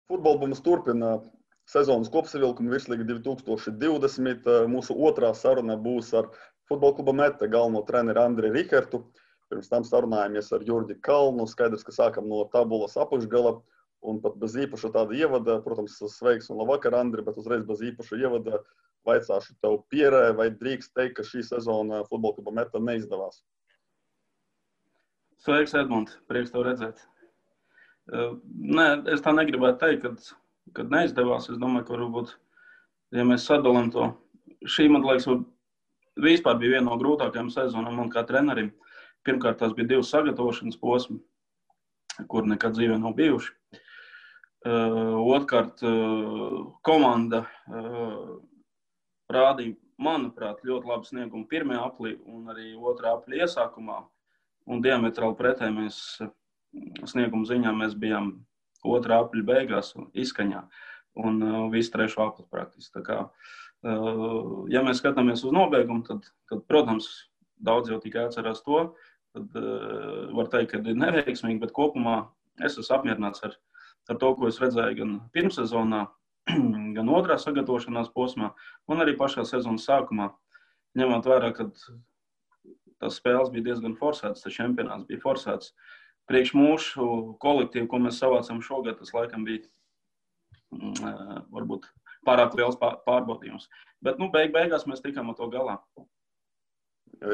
Futbolbums turpina sezonas kopsavilkumu Virslīga 2020. Mūsu otrā saruna būs ar Futbola kluba Mete galveno treneri Andri Rihertu. Pirms tam sarunājamies ar Jurģi Kalnu. Skaidrs, ka sākam no tabulas apakšgala un pat bez īpaša tāda ievada. Protams, sveiks un labvakar, Andri, bet uzreiz bez īpaša ievada vaicāšu tev Pierē, vai drīkst teikt, ka šī sezona Futbola kluba Mete neizdevās? Sveiks, Edmund. Prieks tev redzēt. Nē, es tā negribētu teikt, kad neizdevās. Es domāju, ka varbūt, ja mēs sadalām to, šī, man liekas, vispār bija viena no grūtākajām sezonām man kā trenerim. Pirmkārt, tās bija 2 sagatavošanas posmi, kur nekad dzīvē nav bijuši. Otrkārt, komanda rādīja, manuprāt, ļoti labu sniegumu pirmajā aplī un arī otrā apļa iesākumā. Un diametrāli pretēji mēs sniegumu ziņā mēs bijām otrā apļa beigās izskaņā un visu trešo apli praktiski. Tā kā, ja mēs skatāmies uz nobeigumu, tad protams, daudz jau tikai atcerās to, tad var teikt, ka ir neveiksmīgi, bet kopumā es esmu apmierināts ar to, ko es redzēju gan pirmsezonā, gan otrā sagatavošanās posmā, un arī pašā sezonas sākumā, ņemot vērā, ka tas spēles bija diezgan forsētas, tas čempionāts bija forsēts. Priekš mūsu kolektīvu, ko mēs savācam šogad, tas laikam bija varbūt pārāk liels pārbaudījums. Bet beigās mēs tikām ar to galā.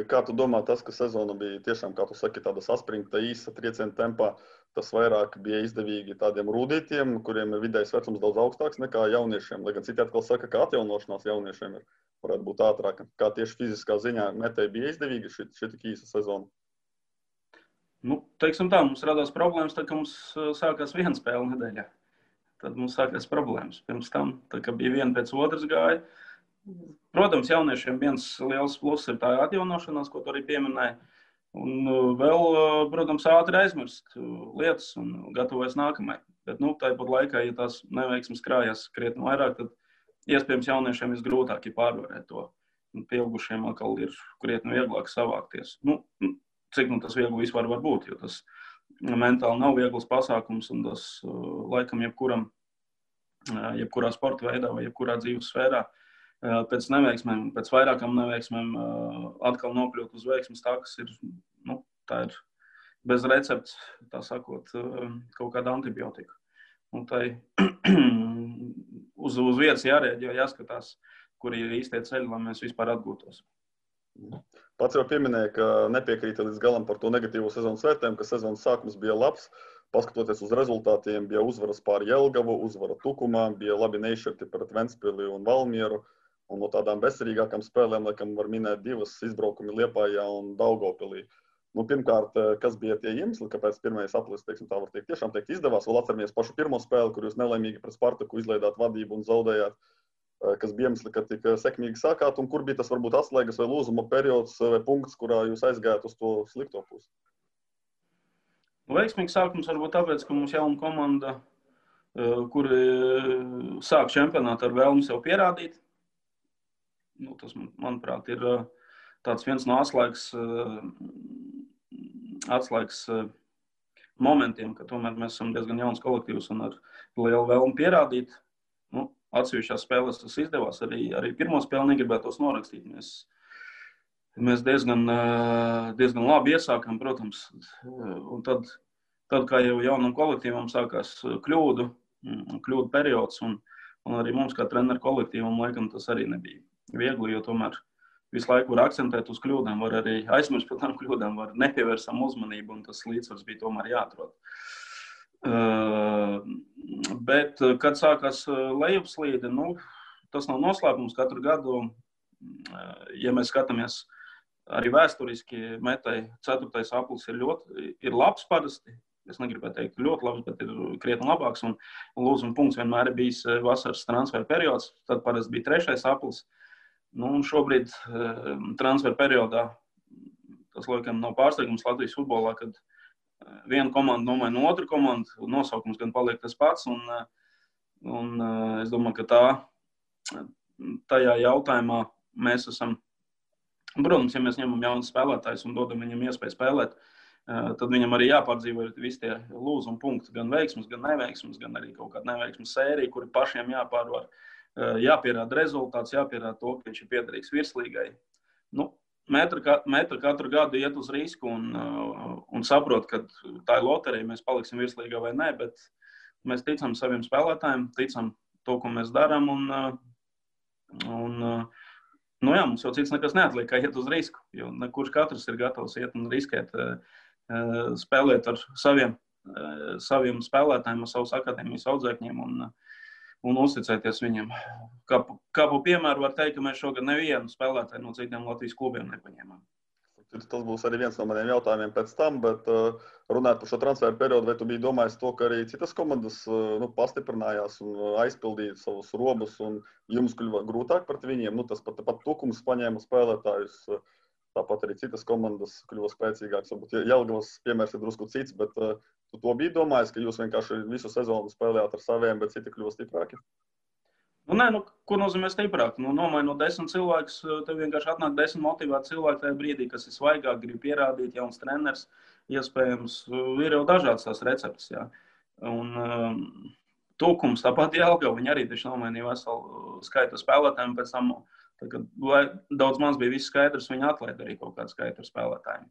Kā tu domā, tas, ka sezona bija tiešām, kā tu saki, tāda saspringta, īsa trieciena tempā, tas vairāk bija izdevīgi tādiem rūdītiem, kuriem ir vidējais vecums daudz augstāks nekā jauniešiem, lai gan citi atkal saka, ka atjaunošanās jauniešiem varētu būt ātrāka. Kā tieši fiziskā ziņā Metei bija izdevīgi šī tik īsa sezona? Teiksim tā, mums radās problēmas, tad, kad mums sākās viena spēle nedēļā. Tad mums sākās problēmas. Pirms tam, tad, kad bija viena pēc otras gāja. Protams, jauniešiem viens liels pluss ir tā atjaunošanās, ko tu arī pieminēji. Un vēl, protams, ātri aizmirst lietas un gatavojas nākamai. Bet, tāpat laikā, ja tās neveiksmes krājās krietni vairāk, tad iespējams jauniešiem visgrūtāk ir pārvarēt to. Un pieaugušiem atkal ir krietni vieglāk savākties. Cik tas viegli vispār var būt, jo tas mentāli nav viegls pasākums un tas laikam jebkurā sporta veidā vai jebkurā dzīves sfērā pēc neveiksmēm, pēc vairākām neveiksmēm atkal nokļūt uz veiksmes takas ir, tā ir bez recepts, tā sakot, kaut kāda antibiotika. Un tai uz vietas jārēģē, jāskatās, kur ir īstie ceļi, lai mēs vispār atgūtos. Pats jau pieminēja, ka nepiekrīta līdz galam par to negatīvo sezonas vērtējumu, ka sezonas sākums bija labs. Paskatoties uz rezultātiem, bija uzvaras pār Jelgavu, uzvara Tukumā, bija labi neizšķirti pret Ventspili un Valmieru. Un no tādām bezcerīgākām spēlēm, laikam, var minēt 2 izbraukumi Liepājā un Daugavpilī. Pirmkārt, kas bija tie iemesli, kāpēc pirmais aplis, tā var teikt, tiešām izdevās? Vēl atceramies pašu pirmo spēli, kur jūs nelaimīgi pret Spartaku izlaidāt vadību un zaudējāt. Kas bija iemesli, ka tik sekmīgi sākāt, un kur bija tas varbūt atslēgas vai lūzuma periods vai punkts, kurā jūs aizgājāt uz to slikto pusi? Veiksmīgs sākums varbūt tāpēc, ka mums jauna komanda, kuri sāk čempionātu ar vēlmi sev pierādīt. Tas, manuprāt, ir tāds viens no atslēgas momentiem, ka tomēr mēs esam diezgan jauns kolektīvs un ar lielu vēlmi pierādīt. Atsevišķās spēlēs tas izdevās, arī pirmo spēli negribētos norakstīt. Mēs diezgan labi iesākām, protams, un tad kā jau jaunam kolektīvam sākās kļūdu periods, un arī mums kā treneru kolektīvam, laikam, tas arī nebija viegli, jo tomēr visu laiku var akcentēt uz kļūdām, var arī aizmirst par tām kļūdām, var nepievērsam uzmanību, un tas līdzsvars bija tomēr jāatrod. Bet, kad sākās lejupslīde, tas nav noslēpums katru gadu. Ja mēs skatāmies arī vēsturiski, Metei 4. aplis ir labs parasti. Es negribētu teikt ļoti labs, bet ir krietni labāks. Un lūzuma punkts vienmēr ir bijis vasaras transferu periods. Tad parasti bija 3. aplis. Un šobrīd transferu periodā tas laikam nav pārsteigums Latvijas futbolā, kad viena komanda nomaina otru komandu, nosaukums gan paliek tas pats, un es domāju, ka tajā jautājumā mēs esam, protams, ja mēs ņemam jaunus spēlētājus un dodam viņam iespēju spēlēt, tad viņam arī jāpārdzīvo visi tie lūzuma punkti, gan veiksmes, gan neveiksmes, gan arī kaut kāda neveiksmes sērija, kuri pašiem jāpārvar, jāpierāda rezultāts, jāpierāda to, ka viņš ir piederīgs virslīgai. Nu, Metru katru gadu iet uz risku un saprot, ka tā ir loterija, mēs paliksim virslīgā vai nē, bet mēs ticam saviem spēlētājiem, ticam to, ko mēs darām, nu jā, mums jau cits nekas neatliek, kā iet uz risku, jo kurš katrs ir gatavs iet un riskēt, spēlēt ar saviem spēlētājiem, ar savus akadēmijas audzēkņiem un uzticēties viņiem. Kā pa piemēru var teikt, ka mēs šogad nevienu spēlētāju no citiem Latvijas klubiem nepaņēmām. Tas būs arī viens no maniem jautājumiem pēc tam, bet runājot par šo transferu periodu, vai tu biji domājis to, ka arī citas komandas pastiprinājās un aizpildīja savus robus un jums kļuva grūtāk pret viņiem? Tas pat Tukums paņēma spēlētājus, tāpat arī citas komandas kļuva spēcīgākas. Varbūt Jelgavas piemērs ir drusku cits, bet tu to biji domājis, ka jūs vienkārši visu sezonu spēlējāt ar saviem, bet citi kļuva stiprāki? Ko nozīmē stiprāk? Nomainot 10 cilvēkus, tev vienkārši atnāk 10 motivēti cilvēki tajā brīdī, kas ir svaigāk, grib pierādīt, jauns treneris, iespējams, ir jau dažādas tās receptes, jā. Un Tukums, tāpat Jelgava, viņi arī taču nomainīja veselu skaitu spēlētājiem, pēc tam, kad daudz maz bija viss skaidrs, viņi atlaida arī kaut kādu skaitu spēlētājiem.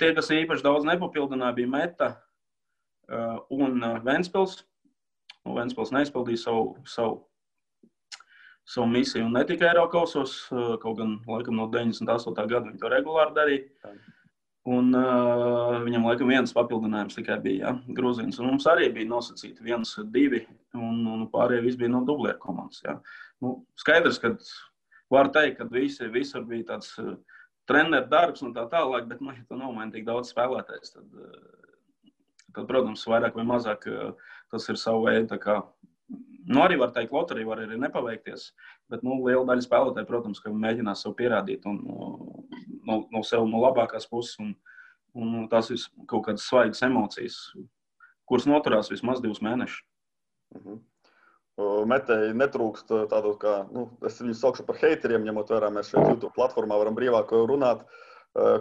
Tie, kas īpaši daudz nepapildināja, bija Meta un Ventspils. Ventspils neizpildīja savu misiju un ne tikai Eirokausos, kaut gan laikam no 98. gada viņi to regulāri darīja. Un viņam laikam viens papildinājums tikai bija, Grūzīns. Un mums arī bija nosacīti 1, 2, un pārējie visi bija no dublieru komandas. Jā. Skaidrs, ka var teikt, ka visur bija tāds treneru darbs un tā tālāk, bet, ja tu nomaini tik daudz spēlētājs, tad, protams, vairāk vai mazāk tas ir savu veidu, tā kā, arī var teikt, loterija var arī nepaveikties, bet, liela daļa spēlētāji, protams, ka mēģinās sev pierādīt un no sev no labākās puses un tās kaut kādas svaigas emocijas, kuras noturās vismaz 2 mēnešus. Metei netrūkst tādu, kā, es viņus saukšu par heiteriem, ņemot vērā, mēs šeit YouTube platformā varam brīvāk runāt,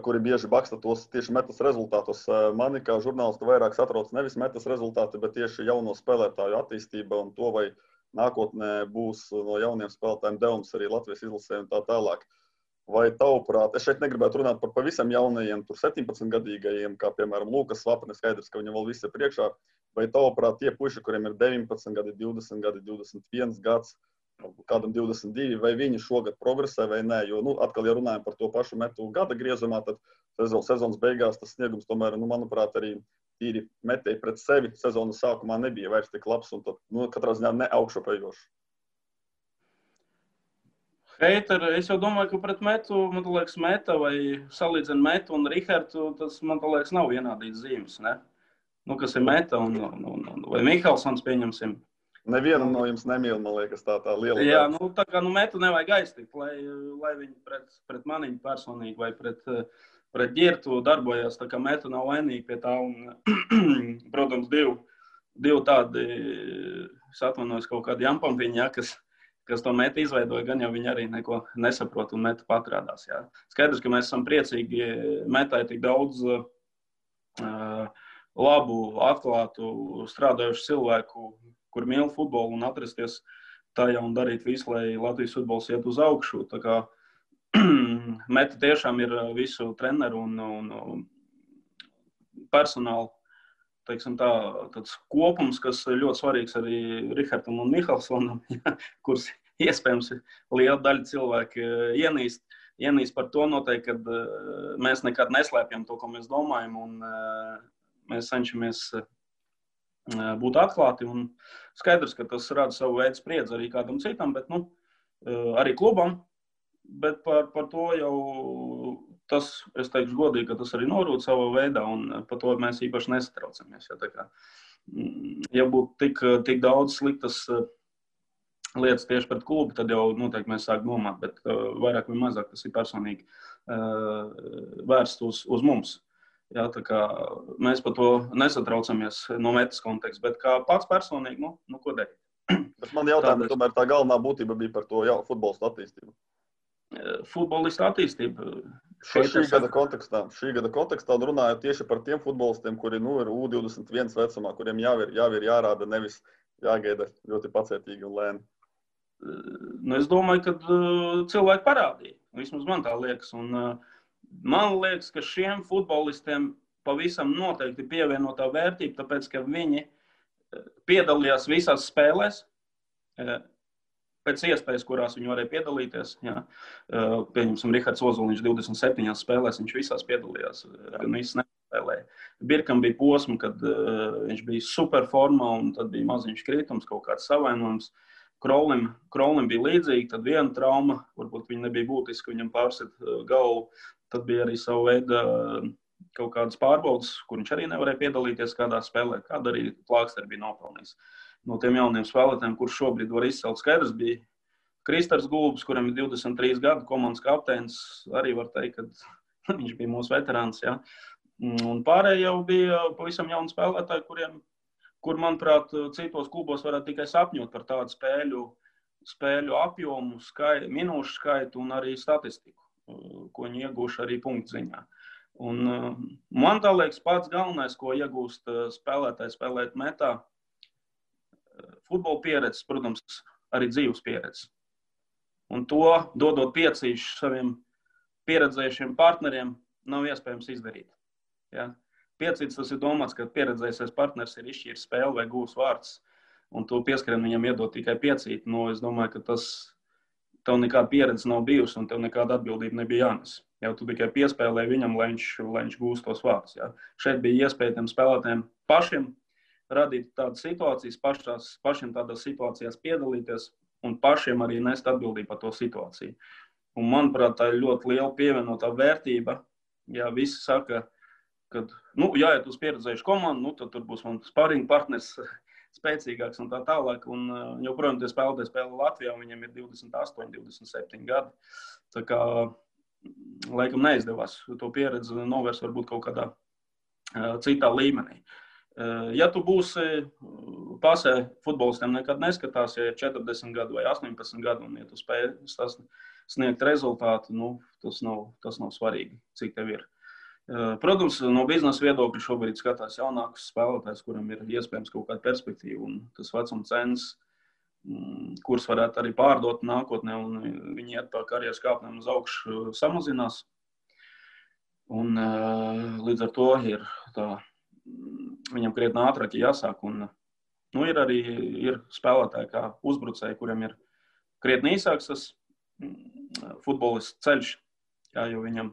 kuri bieži baksta tos tieši Metas rezultātus. Mani kā žurnālistu vairāk satrauc nevis Metas rezultāti, bet tieši jauno spēlētāju attīstība un to, vai nākotnē būs no jauniem spēlētājiem devums arī Latvijas izlasē un tā tālāk. Vai tavuprāt, es šeit negribētu runāt par pavisam jaunajiem, tur 17-gadīgajiem, kā piemēram Lūkas Svapne, skaidrs, ka viņam vēl viss ir priekšā, vai tavuprāt tie puiši, kuriem ir 19 gadi, 20 gadi, 21 gads, kādam 22, vai viņi šogad progresē vai nē, jo, atkal, ja runājam par to pašu Metu gada griezumā, tad sezonas beigās tas sniegums tomēr, manuprāt, arī tīri Metei pret sevi sezonas sākumā nebija vairs tik labs un tad, katrā ziņā ne augšupejošs. Heiteri, es jau domāju, ka pret Metu, man liekas, Meta vai salīdzina Metu un Rihardu, tas, man liekas, nav vienādīts zīmes, ne? Kas ir Meta vai Mihelsons, pieņemsim. Nevienam no jums nemīl, man liekas, tā liela. Jā, tā kā Metu nevajag aiztikt, lai viņi pret maniņu personīgi vai pret Ģirtu darbojās, tā kā Meta nav vainīga pie tā. Un, protams, divi tādi, es atvainojos, kaut kādi jampampiņi, ja, kas to Metu izveidoja, gan jau viņi arī neko nesaprot un Meta patrādās. Jā. Skaidrs, ka mēs esam priecīgi, Metai tik daudz labu, atklātu, strādājušu cilvēku, kur mīl futbolu un atrasties tajā un darīt visu, lai Latvijas futbols iet uz augšu. Tā kā Meta tiešām ir visu treneru un personālu, teiksim tā, tāds kopums, kas ļoti svarīgs arī Rihardam un Mihelsonam, kurus iespējams liela daļa cilvēku ienīst par to noteikti, kad mēs nekad neslēpjam to, ko mēs domājam, un mēs cenšamies būt atklāti. Un skaidrs, ka tas rada savu veidu spriedzi arī kādam citam, bet arī klubam. Bet par to jau tas, es teikšu godīgi, ka tas arī norūd savā veidā, un par to mēs īpaši nesatraucamies. Ja būtu tik daudz sliktas lietas tieši pret klubu, tad jau noteikti mēs sāktu domāt, bet vairāk vai mazāk tas ir personīgi vērsts uz mums. Jā, tā kā mēs par to nesatraucamies no Metas konteksta, bet kā pats personīgi, ko darīt? Bet man jautājums, tomēr tā galvenā būtība bija par to futbolistu attīstību. Futbolistu attīstība. Šī gada kontekstā un runājot tieši par tiem futbolistiem, kuri ir U21 vecumā, kuriem jau ir jārāda, nevis jāgaida ļoti pacietīgi un lēni. Es domāju, ka cilvēki parādīja. Vismaz man tā liekas. Un, man liekas, ka šiem futbolistiem pavisam noteikti pievienotā vērtība, tāpēc, ka viņi piedalījās visās spēlēs, pēc iespējas, kurās viņi varēja piedalīties. Jā. Pieņemsim, Rihards Ozoliņš 27 spēlēs, viņš visās piedalījās, gan visas nespēlēja. Birkam bija posma, kad viņš bija superformā, un tad bija maziņš kritums, kaut kāds savainojums. Krolim bija līdzīgi, tad viena trauma, varbūt viņa nebija būtiska, viņam pārsit galvu, tad bija arī savu veidu kaut kādas pārbaudas, kur viņš arī nevarēja piedalīties kādā spēlē, kāda arī Plāksteri bija nopelnījis. No tiem jauniem spēlētājiem, kurš šobrīd var izcelt skaidrs, bija Kristers Gulbs, kuram ir 23 gadu, komandas kapteinis, arī var teikt, ka viņš bija mūsu veterāns. Ja? Un pārējie jau bija pavisam jauni spēlētāji, kur, manuprāt, citos klubos varētu tikai sapņot par tādu spēļu apjomu, minūšu skaitu un arī statistiku, ko viņi iegūši arī punktu ziņā. Un man tā liekas pats galvenais, ko iegūst spēlētāji spēlēt metā, futbola pieredzes, protams, arī dzīves pieredzes. Un to, dodot piecīšu saviem pieredzējušiem partneriem, nav iespējams izdarīt. Ja? Piecīts tas ir domāts, ka pieredzējusies partners ir izšķīris spēli vai gūs vārds, un to pieskrien viņam iedot tikai piecīt. Es domāju, ka tev nekāda pieredze nav bijusi, un tev nekāda atbildība nebija jānes. Jau tu tikai piespēlēji viņam, lai viņš gūst tos vārdus. Ja? Šeit bija iespēja tiem spēlētājiem pašiem radīt tādas situācijas, pašiem tādās situācijās piedalīties un pašiem arī nest atbildību par to situāciju. Un, manuprāt, tā ir ļoti liela pievienotā vērtība. Ja visi saka, ka, jāiet uz pieredzējušu komandu, tad tur būs man sparring partners spēcīgāks un tā tālāk. Un joprojām tie spēlētāji spēlē Latvijā, viņiem ir 28, 27 gadi. Tā kā laikam neizdevās to pieredzi novērst varbūt kaut kādā citā līmenī. Ja tu būsi pasē, futbolistiem nekad neskatās, ja ir 40 gadu vai 18 gadu, un ja tu spēj sniegt rezultātu, tas nav svarīgi, cik tev ir. Protams, no biznesa viedokļa šobrīd skatās jaunākus spēlētājus, kuram ir iespējams kaut kāda perspektīva, un tas vecuma cenas, kurus varētu arī pārdot nākotnē, un viņi iet pa karjeras kāpnēm uz augšu samazinās. Un līdz ar to ir viņam krietni ātrāk jāsāk. Un, ir spēlētāji kā uzbrucēji, kuriem ir krietni īsāks tas futbolists ceļš, jo viņa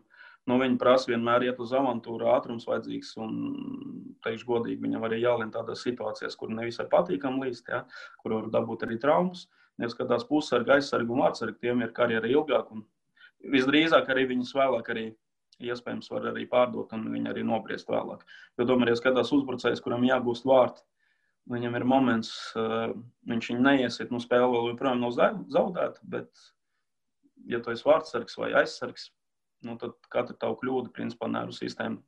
prasa vienmēr iet uz avantūru, ātrums vajadzīgs, un teikšu godīgi, viņam arī jālien tādās situācijās, kur nevisai patīkam līst, kur var dabūt arī traumas. Neskatās pussargi, aizsargi un vārtsargi, tiem ir karjera ilgāk, un visdrīzāk arī viņus vēlāk arī iespējams var arī pārdot, un viņi arī nobriest vēlāk. Jo tomēr, ja skatās uzbrucējs, kuram jāgūst vārti, viņam ir moments, viņš viņu neiesiet, spēle vēl joprojām nav zaudēta, bet, ja tu esi vārtsargs vai aizsargs, tad katra tavu kļūda, principā, nervu sistēma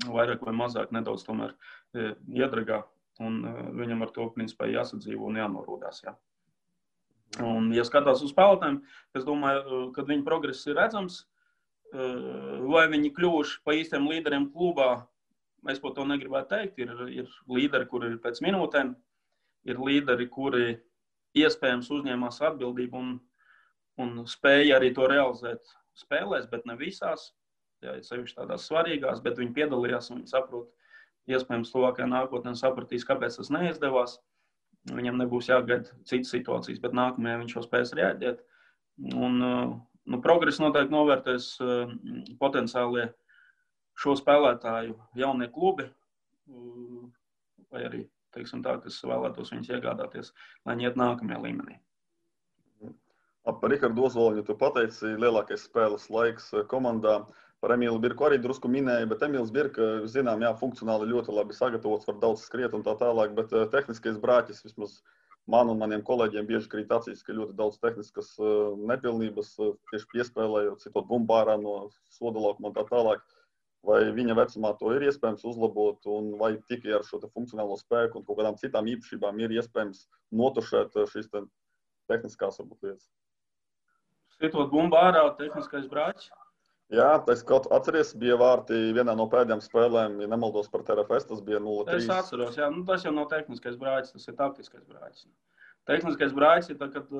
vairāk vai mazāk nedaudz tomēr iedragā, un viņam ar to, principā, jāsadzīvo un jānorūdās, jā. Un, ja skatās uz spēlētājiem, es domāju, kad viņa progress ir redzams, vai viņi kļuvuši pa īstiem līderiem klubā, es par to negribētu teikt. Ir līderi, kuri ir pēc minūtēm, ir līderi, kuri iespējams uzņēmās atbildību un spēja arī to realizēt spēlēs, bet ne visās, sevišķi tādās svarīgās, bet viņi piedalījās un viņi saprot, iespējams tuvākajā nākotnē sapratīs, kāpēc tas neizdevās. Viņam nebūs jāgaida citas situācijas, bet nākamajā viņš jau spēs reaģēt. Un progress noteikti novērtēs potenciālie šo spēlētāju jaunie klubi, vai arī, teiksim tā, kas vēlētos viņus iegādāties, lai viņi iet nākamajā līmenī. Par Rihardu Ozoliņu tu pateici, lielākais spēles laiks komandā. Par Emīlu Birku arī drusku minēja, bet Emīls Birka, zinām, funkcionāli ļoti labi sagatavots, var daudz skriet un tā tālāk, bet tehniskais brāķis vismaz man un maniem kolēģiem bieži krīt acīs, ka ļoti daudz tehniskas nepilnības tieši piespēlējot, citot bumbārā no soda laukuma un tā tālāk. Vai viņa vecumā to ir iespējams uzlabot, un vai tikai ar šo funkcionālo spēku un kaut kādām citām īpašībām ir iespējams notušēt šīs tehniskās varbūt lietas? Citot bumbārā tehniskais brāķis? Jā, tas kaut atceries, bija vārti vienā no pēdējām spēlēm, ja nemaldos par TRFS, tas bija 0-3. Es atceros, jā, tas jau nav tehniskais brāķis, tas ir taktiskais brāķis. Tehniskais brāķis ir tā, kad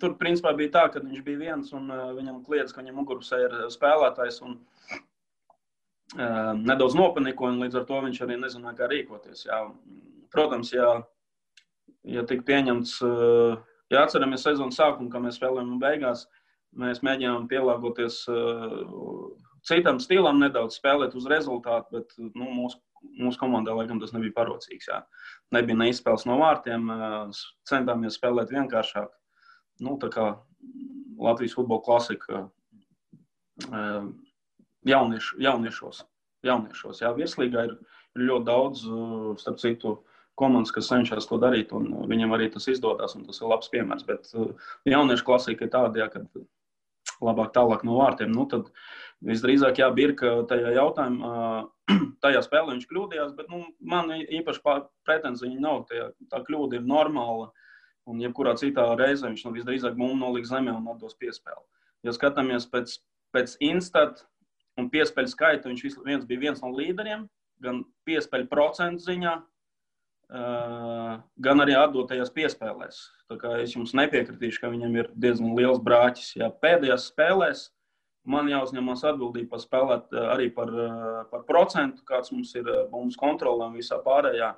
tur principā bija tā, ka viņš bija viens un viņam kliedz, ka viņam mugurpusē ir spēlētājs un nedaudz nopaniko, un līdz ar to viņš arī nezināja, kā rīkoties. Jā. Protams, ja tika pieņemts, ja atceramies sezonas sākumu, kā mēs spēlējām un beigās, mēs mēģinām pielāgoties citam stilam, nedaudz spēlēt uz rezultātu, bet mūsu komandā, laikam, tas nebija parocīgs. Jā. Nebija neizspēles no vārtiem, centāmies spēlēt vienkāršāk. Tā kā Latvijas futbola klasika jauniešos. Jā, virslīgā ir ļoti daudz, starp citu, komandas, kas cenšas to darīt, un viņam arī tas izdodas, un tas ir labs piemērs. Bet jauniešu klasika ir tāda, kad labāk tālāk no vārtiem. Tad visdrīzāk Birka tajā jautājumā, tajā spēlē viņš kļūdījās, bet man īpaši pretenzija nav. Tā kļūda ir normāla, un jebkurā citā reizē viņš visdrīzāk mums noliks zemē un atdos piespēli. Ja skatāmies pēc instat un piespēļu skaita, viņš bija viens no līderiem, gan piespēļu procentu ziņā, gan arī atdotajās piespēlēs. Tā kā es jums nepiekritīšu, ka viņam ir diezgan liels brāķis. Jā, pēdējās spēlēs man jāuzņemās atbildība par spēlēt arī par procentu, kāds mums ir mums kontrolē un visā pārējā,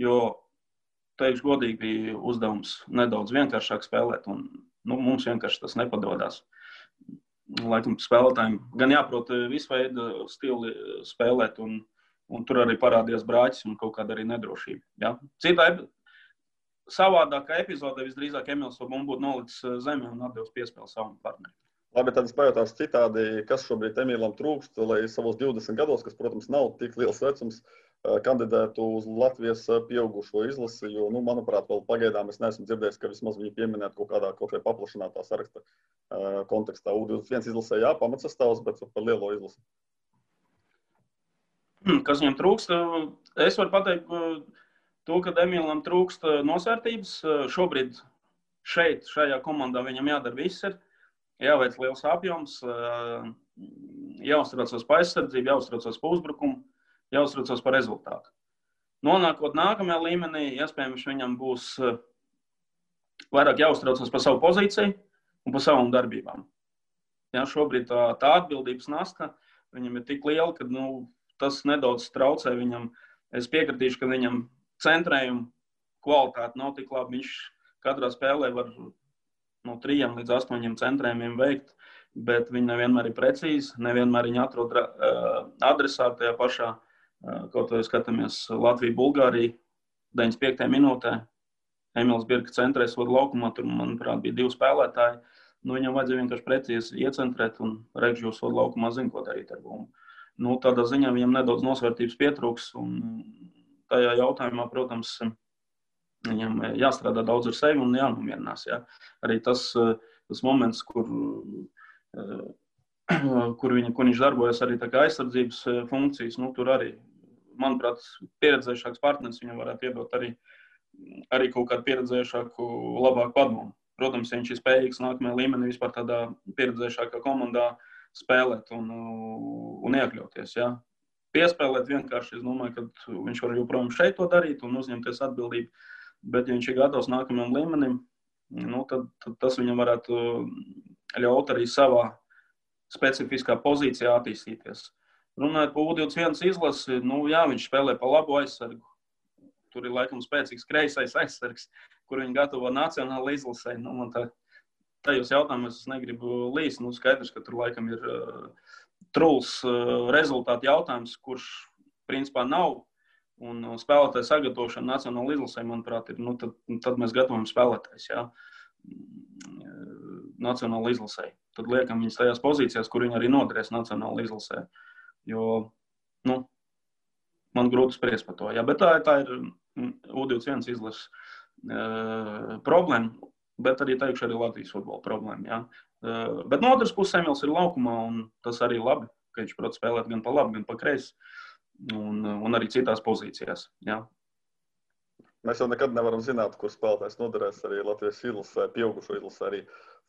jo, teikšu godīgi, bija uzdevums nedaudz vienkāršāk spēlēt, un mums vienkārši tas nepadodās. Laikam spēlētājiem gan jāprot visu veidu stili spēlēt, un tur arī parādījās brāķis un kaut kāda arī nedrošība. Ja? Citā savādākā epizodē visdrīzāk Emils Sobum būtu nolicis zemē un atdevis piespēli savam partnerim. Labi, tad es pajautāšu citādi, kas šobrīd Emilam trūkst, lai savos 20 gados, kas, protams, nav tik liels vecums, kandidētu uz Latvijas pieaugušo izlasi, jo, manuprāt, vēl pagaidām es neesmu dzirdējis, ka vismaz viņi pieminētu kaut vai paplašinātā saraksta kontekstā. U21 izlasē pamatsastāvs, bet par lielo izlasi. Kas viņam trūkst? Es varu pateikt to, ka Emilam trūkst nosvērtības. Šobrīd šajā komandā viņam jādara viss ir. Jāveic liels apjoms, jāuztraucas par aizsardzību, jāuztraucas par uzbrukumu, jāuztraucas par rezultātu. Nonākot nākamajā līmenī, iespējams, viņam būs vairāk jāuztraucas par savu pozīciju un par savām darbībām. Ja, šobrīd tā atbildības nasta viņam ir tik liela, ka tas nedaudz traucē viņam. Es piekritīšu, ka viņam centrējuma kvalitāte nav tik laba. Viņš katrā spēlē var no 3 līdz 8 centrējumiem veikt, bet viņi nevienmēr ir precīzi, nevienmēr viņi atrod adresātu tajā pašā, kaut vai skatāmies Latviju-Bulgāriju, 95. minūtē. Emils Birka centrēs vada laukumā, tur, manuprāt, bija 2 spēlētāji. Viņam vajadzēja vienkārši precīzi iecentrēt, un Regžģos vada laukumā zina, ko darīt ar bumbu. Tādā ziņā viņam nedaudz nosvērtības pietrūks, un tajā jautājumā, protams, viņam jāstrādā daudz ar sevi un jānomierinās. Ja. Arī tas moments, kur viņš darbojas arī tā kā aizsardzības funkcijas, tur arī, manuprāt, pieredzējušāks partneris viņam varētu iedot arī kaut kādu pieredzējušāku, labāku padomu. Protams, ja viņš ir spējīgs nākamajā līmenī vispār tādā pieredzējušākā komandā spēlēt un iekļauties. Ja. Piespēlēt vienkārši, es domāju, ka viņš var joprojām šeit to darīt un uzņemties atbildību. Bet, ja viņš ir gatavs nākamajam līmenim, tad tas viņam varētu ļaut arī savā specifiskā pozīcijā attīstīties. Runājot par U21 izlasi, viņš spēlē pa labu aizsargu. Tur ir laikam spēcīgs kreisais aizsargs, kur viņi gatavo nacionāla izlasē. Tajos jautājumos es negribu līst. Skaidrs, ka tur laikam ir truls rezultātu jautājums, kurš principā nav. Un spēlētāju sagatavošana nacionāla izlasē, manuprāt, ir, tad mēs gatavojam spēlētājs, jā, nacionāla izlasē. Tad liekam viņus tajās pozīcijās, kur viņi arī noderēs nacionāla izlasē. Jo, man grūti spriest par to, jā, bet tā ir U21 izlases problēma, bet arī teikšu arī Latvijas futbola problēma, jā. Bet no otras puses Emils ir laukumā, un tas arī labi, ka viņš prot spēlēt gan pa labi, gan pa kreisi. Un arī citās pozīcijās. Jā. Mēs jau nekad nevaram zināt, kur spēlētājs noderēs arī Latvijas izlasē, pieaugušo izlasē arī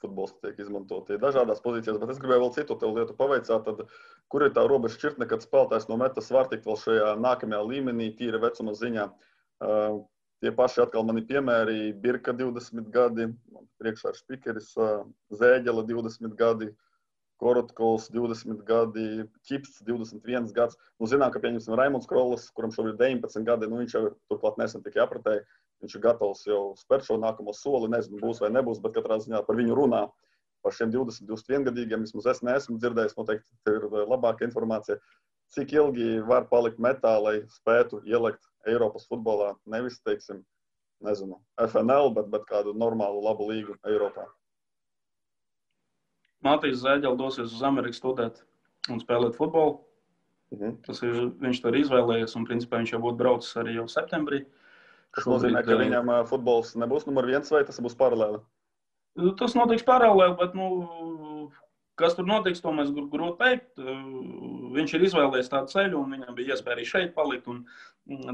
futbols tiek izmantoti dažādās pozīcijās, bet es gribēju vēl citu tev lietu pavaicāt, tad kur ir tā robeža šķirtne, kad spēlētājs no metas var tikt vēl šajā nākamajā līmenī, tīra vecuma ziņā. Tie paši atkal mani piemēri, Birka 20 gadi, priekšā ir Špikeris, Zēģela 20 gadi, Korotkovs 20 gadi, Čips 21 gads. Zinām, ka pieņemsim Raimonds Krollis, kuram šobrīd 19 gadi, viņš jau turklāt nesen tikai apratēja, viņš ir gatavs jau spērt šo nākamo soli, nezinu, būs vai nebūs, bet katrā ziņā par viņu runā. Par šiem 20-21 gadīgiem vismaz es neesmu dzirdējis, noteikti ir labāka informācija. Cik ilgi var palikt metā, lai spētu ielikt Eiropas futbolā, nevis, teiksim, nezinu, FNL, bet kādu normālu labu līgu Eiropā? Matīs Zēģela dosies uz Ameriku studēt un spēlēt futbolu. Tas viņš to ir izvēlējies, un principā viņš jau būtu braucis arī jau septembrī. Tas nozīmē, ka viņam futbols nebūs numur 1 vai tas būs paralēli? Tas notiks paralēli, bet, kas tur notiks, to mēs grūti teikt. Viņš ir izvēlējies tādu ceļu, un viņam bija iespēja arī šeit palikt un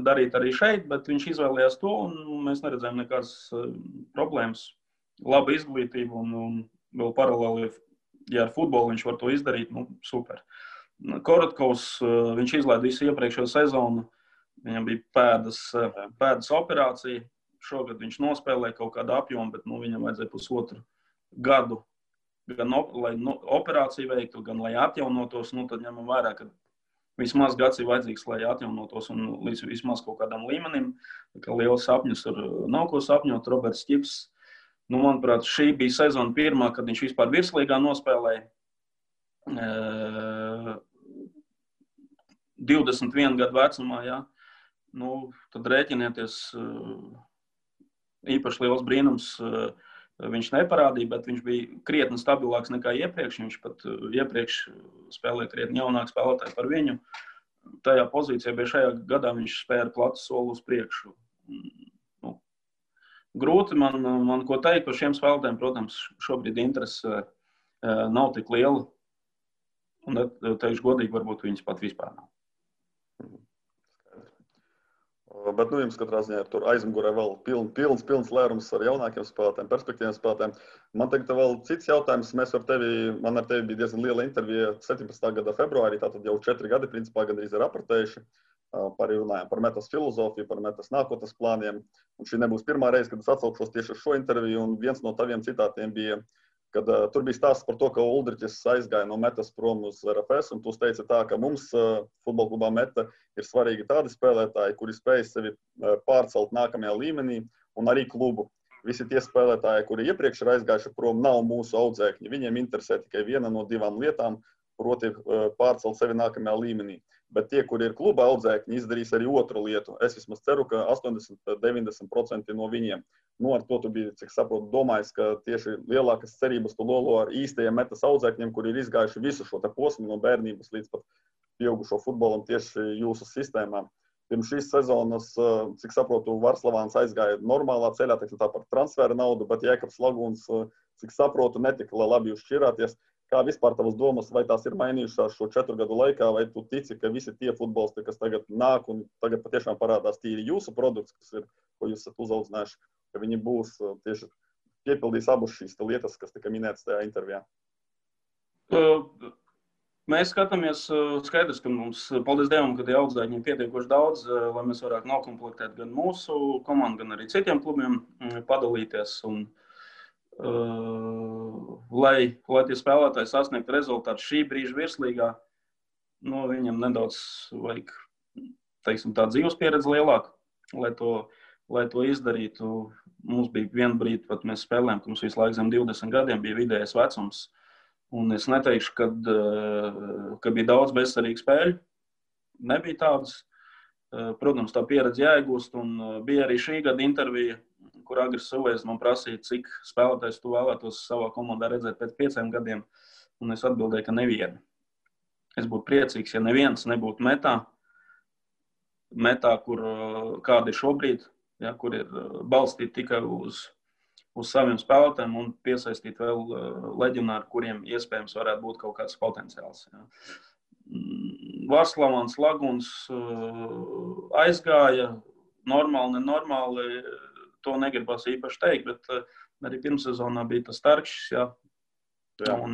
darīt arī šeit, bet viņš izvēlējās to, un mēs neredzējām nekādas problēmas. Laba izglītība, un vēl paralēli, ja ar futbolu viņš var to izdarīt, super. Korotkovs, viņš izlaida visu iepriekšējo sezonu, viņam bija pēdas operācija. Šogad viņš nospēlēja kaut kādu apjomu, bet viņam vajadzēja pusotru gadu, gan lai operāciju veiktu, gan lai atjaunotos. Tad ņemam vērā, ka vismaz gads ir vajadzīgs, lai atjaunotos un līdz vismaz kaut kādam līmenim. Ka liels sapņus tur nav ko sapņot. Roberts Čips, manuprāt, šī bija sezona pirmā, kad viņš vispār virslīgā nospēlēja. 21 gadu vecumā, jā. Tad rēķinieties, īpaši liels brīnums viņš neparādīja, bet viņš bija krietni stabilāks nekā iepriekš. Viņš pat iepriekš spēlēja krietni jaunāk spēlētāji par viņu. Tajā pozīcijā bija šajā gadā viņš spēja platu soli uz priekšu. Grūti man ko teikt par šiem spēlētājiem. Protams, šobrīd interese nav tik liela. Un teikšu godīgi, varbūt viņas pat vispār nav. Bet jums katrā ziņā ir tur aizmugurē vēl pilns lērums ar jaunākiem spēlētājiem, perspektīviem spēlētājiem. Man tagad vēl cits jautājums. Man ar tevi bija diezgan liela intervija 17. gada februārī, tātad jau 4 gadi principā gandrīz ir apratējuši. Runājām par metas filozofiju, par metas nākotnes plāniem. Un šī nebūs pirmā reize, kad es atsaukšos tieši uz šo interviju, un viens no taviem citātiem bija, kad tur bija stāsts par to, ka Uldriķis aizgāja no metas prom uz RFS, un tu teici tā, ka mums futbola klubā meta ir svarīgi tādi spēlētāji, kuri spēj sevi pārcelt nākamajā līmenī, un arī klubu. Visi tie spēlētāji, kuri iepriekš ir aizgājuši prom, nav mūsu audzēkņi. Viņiem interesē tikai viena no 2 lietām, proti pārcelt sevi nākamajā līmenī. Bet tie, kuri ir kluba audzēkņi, izdarīs arī otru lietu. Es vismaz ceru, ka 80–90% no viņiem. Ar to tu biji, cik saprotu, domājis, ka tieši lielākas cerības tu lolo ar īstajiem metas audzēkņiem, kuri ir izgājuši visu šo te posmu no bērnības līdz pat pieaugušo futbolam tieši jūsu sistēmā. Pirms šīs sezonas, cik saprotu, Varslavāns aizgāja normālā ceļā, tā par transfera naudu, bet Jēkabs Lagūns, cik saprotu, netika labi jūs šķirāties. Kā vispār tavas domas, vai tās ir mainījušās šo 4 gadu laikā, vai tu tici, ka visi tie futbolisti, kas tagad nāk un tagad patiešām parādās tīri jūsu produkts, kas ir, ko jūs esat uzaudzinājuši, ka viņi būs tieši piepildīs abas šīs lietas, kas tika minētas tajā intervijā? Mēs skatāmies skaidrs, ka mums, paldies Dievam, ka tie audzēkņi ir pietiekoši daudz, lai mēs varētu nokomplektēt gan mūsu komandu, gan arī citiem klubiem padalīties. Lai tie spēlētāji sasniegtu rezultātu šī brīža virslīgā, viņam nedaudz vajag, teiksim, tā dzīves pieredze lielāka, lai to izdarītu. Mums bija vienu brīdi, pat mēs spēlējām, ka mums visu laiku zem 20 gadiem bija vidējais vecums. Un es neteikšu, ka bija daudz bezcerīgu spēļu. Nebija tādas. Protams, tā pieredze jāiegūst, un bija arī šī gada intervija, kur Agris Suvējs man prasīja, cik spēlētājs tu vēlētos savā komandā redzēt pēc 5 gadiem, un es atbildēju, ka nevienu. Es būtu priecīgs, ja neviens nebūtu metā, kur kāda ir šobrīd, ja, kur ir balstīti tikai uz saviem spēlētājiem un piesaistīt vēl leģionāri, kuriem iespējams varētu būt kaut kāds potenciāls. Ja. Varslavāns Laguns aizgāja, normāli, nenormāli, to negribas īpaši teikt, bet arī pirmsezonā bija tas Starkšs, jā. Un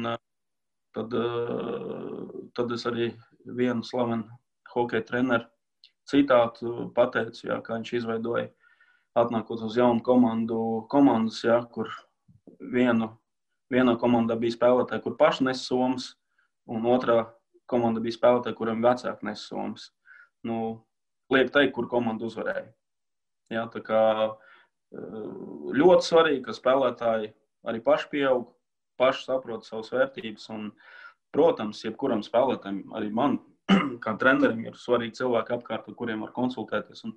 tad es arī vienu slavenu hokeja treneru citātu pateicu, jā, kā viņš izveidoja, atnākot uz jaunu komandas, jā, kur vienā komandā bija spēlētāji, kur paši nes somas, un otrā komanda bija spēlētāji, kuriem vecāki nes somas. Liek teikt, kur komanda uzvarēja. Jā, tā kā ļoti svarīgi, ka spēlētāji arī paši pieaug, paši saprot savas vērtības, un, protams, jebkuram spēlētājiem, arī man, kā trenerim, ir svarīgi cilvēki apkārt, ar kuriem var konsultēties, un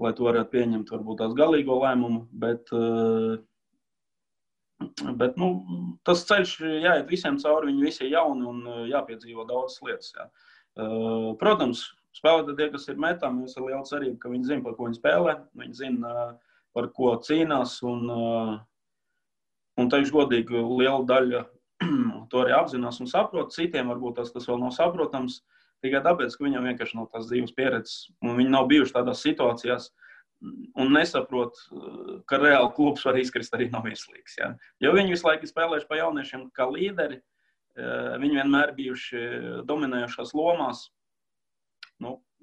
lai to varētu pieņemt, varbūt tās galīgo lēmumu, bet tas ceļš jāiet visiem cauri, viņi visi ir jauni un jāpiedzīvo daudzas lietas. Jā. Protams, spēlētāji tie, kas ir metām, jūs ir liela cerība, ka viņi zina, par ko viņi spēlē, viņi zina, par ko cīnās, un teikšu godīgi, liela daļa to arī apzinās un saprot. Citiem varbūt tas vēl nav saprotams, tikai tāpēc, ka viņam vienkārši nav tās dzīves pieredzes, un viņi nav bijuši tādās situācijās un nesaprot, ka reāli klubs var izkrist arī no virslīgas. Ja? Jo viņi visu laiku spēlējuši pa jauniešiem kā līderi, viņi vienmēr bijuši dominējošās lomās,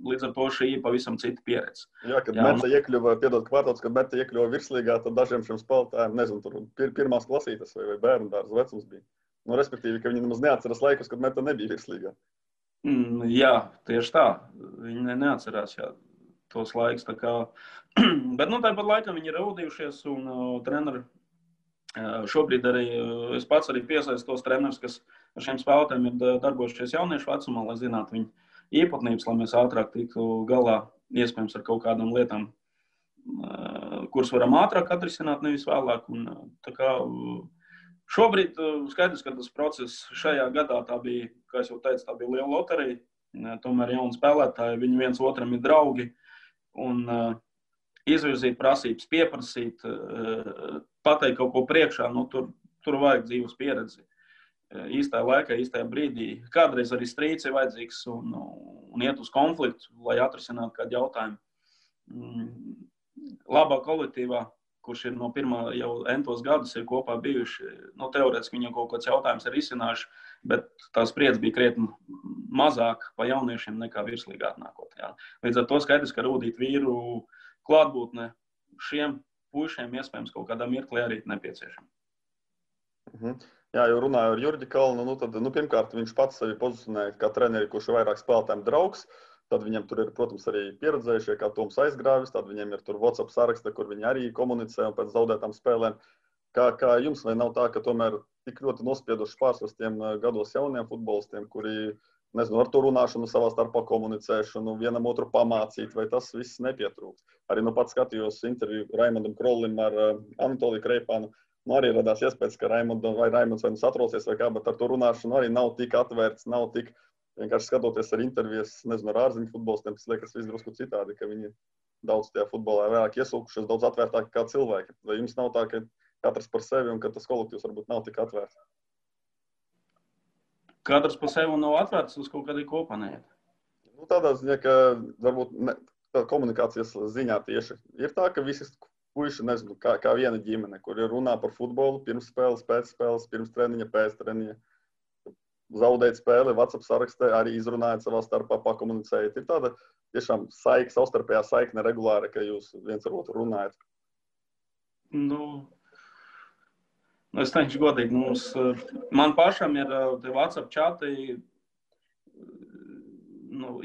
līdz ar to šī ir pavisam cita pieredze. Jā, kad Meta iekļuva, kad Meta iekļuva virslīgā, tad dažiem šiem spēlētājiem, nezinu, tur pirmās klasītes vai bērnu dārza vecums bija. Respektīvi, ka viņi nemaz neatceras laikus, kad Meta nebija virslīgā. Jā, tieši tā. Viņi neatcerās tos laikus. Bet tāpat laikam viņi ir raudījušies, un treneri šobrīd arī, es pats arī piesaistu tos trenerus, kas ar šiem spēlētājiem ir darbojušies jauniešu vecumā, lai zinātu viņu īpatnības, lai mēs ātrāk tiktu galā, iespējams, ar kaut kādām lietām, kuras varam ātrāk atrisināt, nevis vēlāk. Šobrīd skaidrs, ka tas process šajā gadā tā bija, kā es jau teicu, tā bija liela loterija. Tomēr jauni spēlētāji, viņi viens otram ir draugi. Un izvirzīt prasības, pieprasīt, pateikt kaut ko priekšā, tur vajag dzīves pieredzi. Īstajā laikā, īstajā brīdī. Kādreiz arī strīds ir vajadzīgs un iet uz konfliktu, lai atrisinātu kādu jautājumu. Labā kolektīvā, kurš ir no pirmā jau entos gadus ir kopā bijuši, teorētiski viņam kaut kāds jautājums ir izcinājuši, bet tā spriedze bija krietni mazāk pa jauniešiem nekā virslīgā atnākot. Jā. Līdz ar to skaidrs, ka rūdīt vīru klātbūtne šiem puišiem iespējams kaut kādā mirklī arī nepieciešama. Jā, jau runāju ar Jurģi Kalnu, tad pirmkārt viņš pats sevi pozicionēja kā treneri, kurš ir vairāk spēlētājiem draugs. Tad viņam tur ir, protams, arī pieredzējušie, kā Toms Aizgrāvis, tad viņam ir tur WhatsApp saraksta, kur viņi arī komunicē un pēc zaudētām spēlēm. Kā jums vai nav tā, ka tomēr tik ļoti nospieduši pārsvars tiem gados jauniem futbolistiem, kuri, nezinu, ar to runāšanu, savā starpā komunicēšanu, vienam otru pamācīt, vai tas viss nepietrūks? Arī pats skatījos interviju Raimondam Krollim ar Anatoliju Kreipānu. Arī radās iespējas, ka Raimonds vai satraucies vai kā, bet ar to runāšanu arī nav tik atvērts, nav tik vienkārši skatoties ar intervijas, nezinu, ar ārziņu futbolistiem, tas liekas viss drusku citādi, ka viņi daudz tajā futbolā vairāk iesūkušies, daudz atvērtāki kā cilvēki. Vai jums nav tā, ka katrs par sevi un ka tas kolektīvs varbūt nav tik atvērts? Katrs par sevi nav atvērts, uz kaut kādī kopā neiet. Tādā ziņā, ka varbūt komunikācijas ziņā tieši ir tā, ka visi puiši, nezinu, kā viena ģimene, kur ir runā par futbolu, pirms spēles, pēc spēles, pirms treniņa, pēc treniņa. Zaudēt spēli, WhatsApp sarakstē, arī izrunājot savā starpā, pakomunicējot. Ir tāda tiešām savstarpējā saikne regulāri, ka jūs viens ar otru runājat. Es teikšu godīgi, man pašam ir WhatsApp čati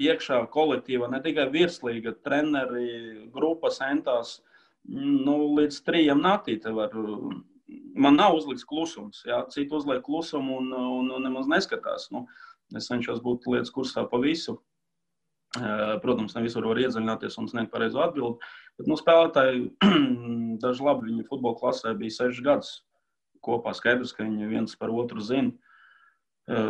iekšā kolektīva, ne tikai virslīga, treneri, grupas entās, līdz 3 naktī te var. Man nav uzlikts klusums, jā, citi uzliek klusumu un nemaz neskatās. Es cenšos būt lietas kursā pa visu. Protams, ne visur var iedziļināties un sniegt pareizo atbildi, bet spēlētāji, daži labi, viņi futbola klasē bija 6 gadus kopā, skaidrs, ka viņi viens par otru zina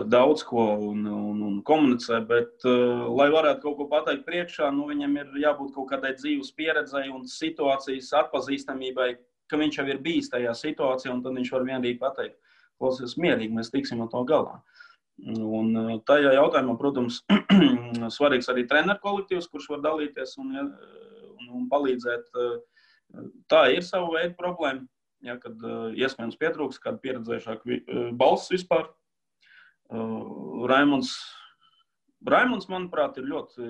daudz ko un komunicē, bet, lai varētu kaut ko pateikt priekšā, viņam ir jābūt kaut kādai dzīves pieredzei un situācijas atpazīstamībai, ka viņš jau ir bijis tajā situācijā, un tad viņš var vienīgi pateikt, klausies mierīgi, mēs tiksim ar to galā. Un tajā jautājumā, protams, svarīgs arī treneru kolektīvs, kurš var dalīties un un palīdzēt. Tā ir sava veida problēma, ja, kad iespējams pietrūks kādu pieredzējušāku balss vispār. Raimunds, manuprāt, ir ļoti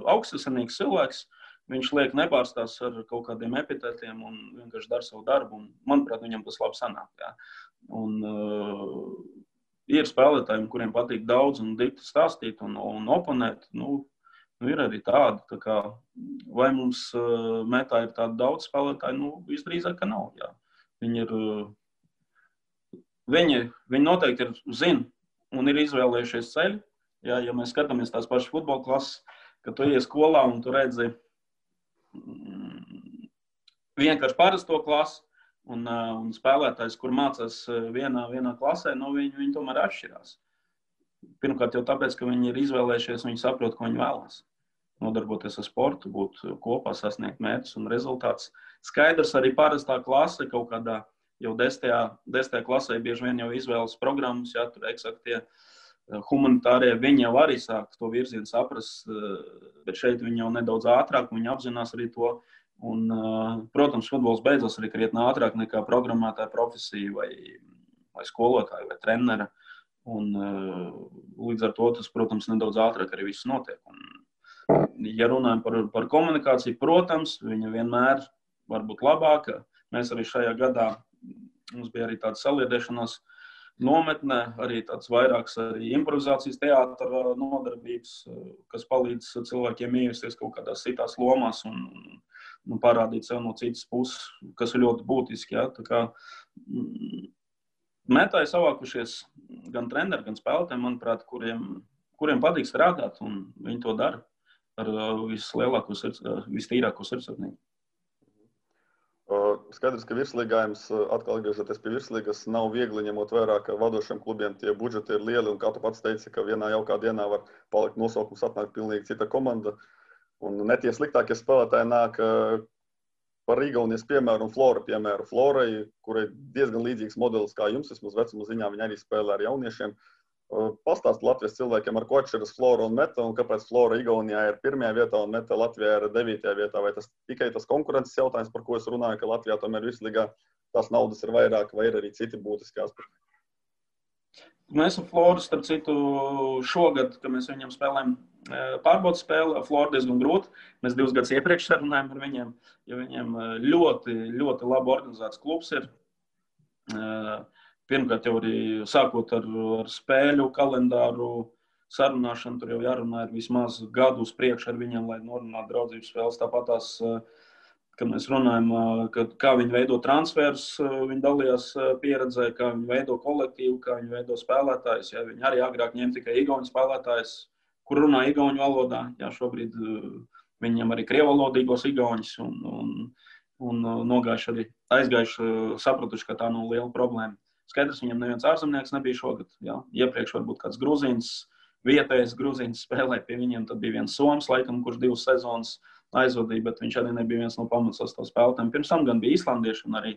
augstasinīgs cilvēks. Viņš liek nepārstās ar kaut kādiem epitetiem un vienkārši dara savu darbu. Un, manuprāt, viņam tas labi sanāk. Jā. Un ir spēlētājiem, kuriem patīk daudz un dikti stāstīt un oponēt. Ir arī tādi. Tā kā, vai mums metā ir tādi daudz spēlētāji? Visdrīzāk, ka nav. Jā. Viņi noteikti zina un ir izvēlējušies ceļu. Jā, ja mēs skatāmies tās pašas futbola klases, kad tu ies skolā un tu redzi vienkārši parasto klasi un spēlētājs, kur mācās vienā klasē, viņi tomēr atšķirās. Pirmkārt jau tāpēc, ka viņi ir izvēlējušies, viņi saprot, ko viņi vēlās. Nodarboties ar sportu, būt kopā, sasniegt mērķus un rezultātus. Skaidrs, arī parastā klase kaut kādā jau 10. klasē bieži vien jau izvēlas programmas, ja tur eksaktie humanitārie, viņi jau arī sāk to virzienu saprast, bet šeit viņi jau nedaudz ātrāk, viņi apzinās arī to. Un, protams, futbols beidzas arī krietni ātrāk nekā programmētāja profesija vai skolotāja vai trenera. Un, līdz ar to tas, protams, nedaudz ātrāk arī viss notiek. Un, ja runājam par komunikāciju, protams, viņa vienmēr var būt labāka. Mēs arī šajā gadā, mums bija arī tāda saliedēšanās nometne, arī tāds vairāks arī improvizācijas teātra nodarbības, kas palīdz cilvēkiem iejusties kaut kādās citās lomās un parādīt sev no citas puses, kas ir ļoti būtiski. Ja? Tā kā metā ir savākušies gan treneri, gan spēlētāji, manuprāt, kuriem patīk strādāt, un viņi to dara ar vislielāko, vistīrāko sirdsapziņu. Skaidrs, ka virslīgājums, atkal atgriežoties pie virslīgas, nav viegli ņemot vērā, ka vadošiem klubiem tie budžeti ir lieli, un kā tu pats teici, ka vienā jaukā dienā var palikt nosaukums, atnāk pilnīgi cita komanda. Un ne tie sliktākie spēlētāji nāk par Igaunijas piemēru un Flora piemēru. Florai, kurai diezgan līdzīgs modelis kā jums, vismaz vecuma ziņā, viņi arī spēlē ar jauniešiem. Pastāst Latvijas cilvēkiem, ar ko atšķiras Flora un Meta, un kāpēc Flora Igaunijā ir 1. vietā un Meta Latvijā ir 9. vietā. Vai tas tikai tas konkurences jautājums, par ko es runāju, ka Latvijā tomēr virslīgā tās naudas ir vairāk, vai ir arī citi būtiski aspekti? Mēs ar Floru, starp citu, šogad, kad mēs viņam spēlējam pārbaudas spēli, Flora diezgan grūti. Mēs 2 gadus iepriekš sarunājam ar viņiem, jo viņiem ļoti, ļoti labi organizēts klubs ir. Pirmkārt, jau arī sākot ar spēļu kalendāru sarunāšanu, tur jau jārunā ir vismaz gadu uz priekšu ar viņiem, lai norunātu draudzības spēles. Tāpat tās, kad mēs runājam, kā viņi veido transferus, viņi dalījās pieredzē, kā viņi veido kolektīvu, kā viņi veido spēlētājus. Ja, viņi arī agrāk ņem tikai igauņu spēlētājus, kur runā igauņu valodā. Ja, šobrīd viņiem arī krievalodīgos igauņus un aizgājuši, sapratuši, ka tā nav liela problēma. Skaidrs, viņam neviens ārzemnieks nebija šogad. Jā. Iepriekš varbūt kāds grūzīns, vietējais grūzīns spēlē pie viņiem. Tad bija viens soms, laikam, kurš 2 sezonas aizvadīja, bet viņš arī nebija viens no pamatsastāv spēlētājiem. Pirms tam gan bija īslandieši un arī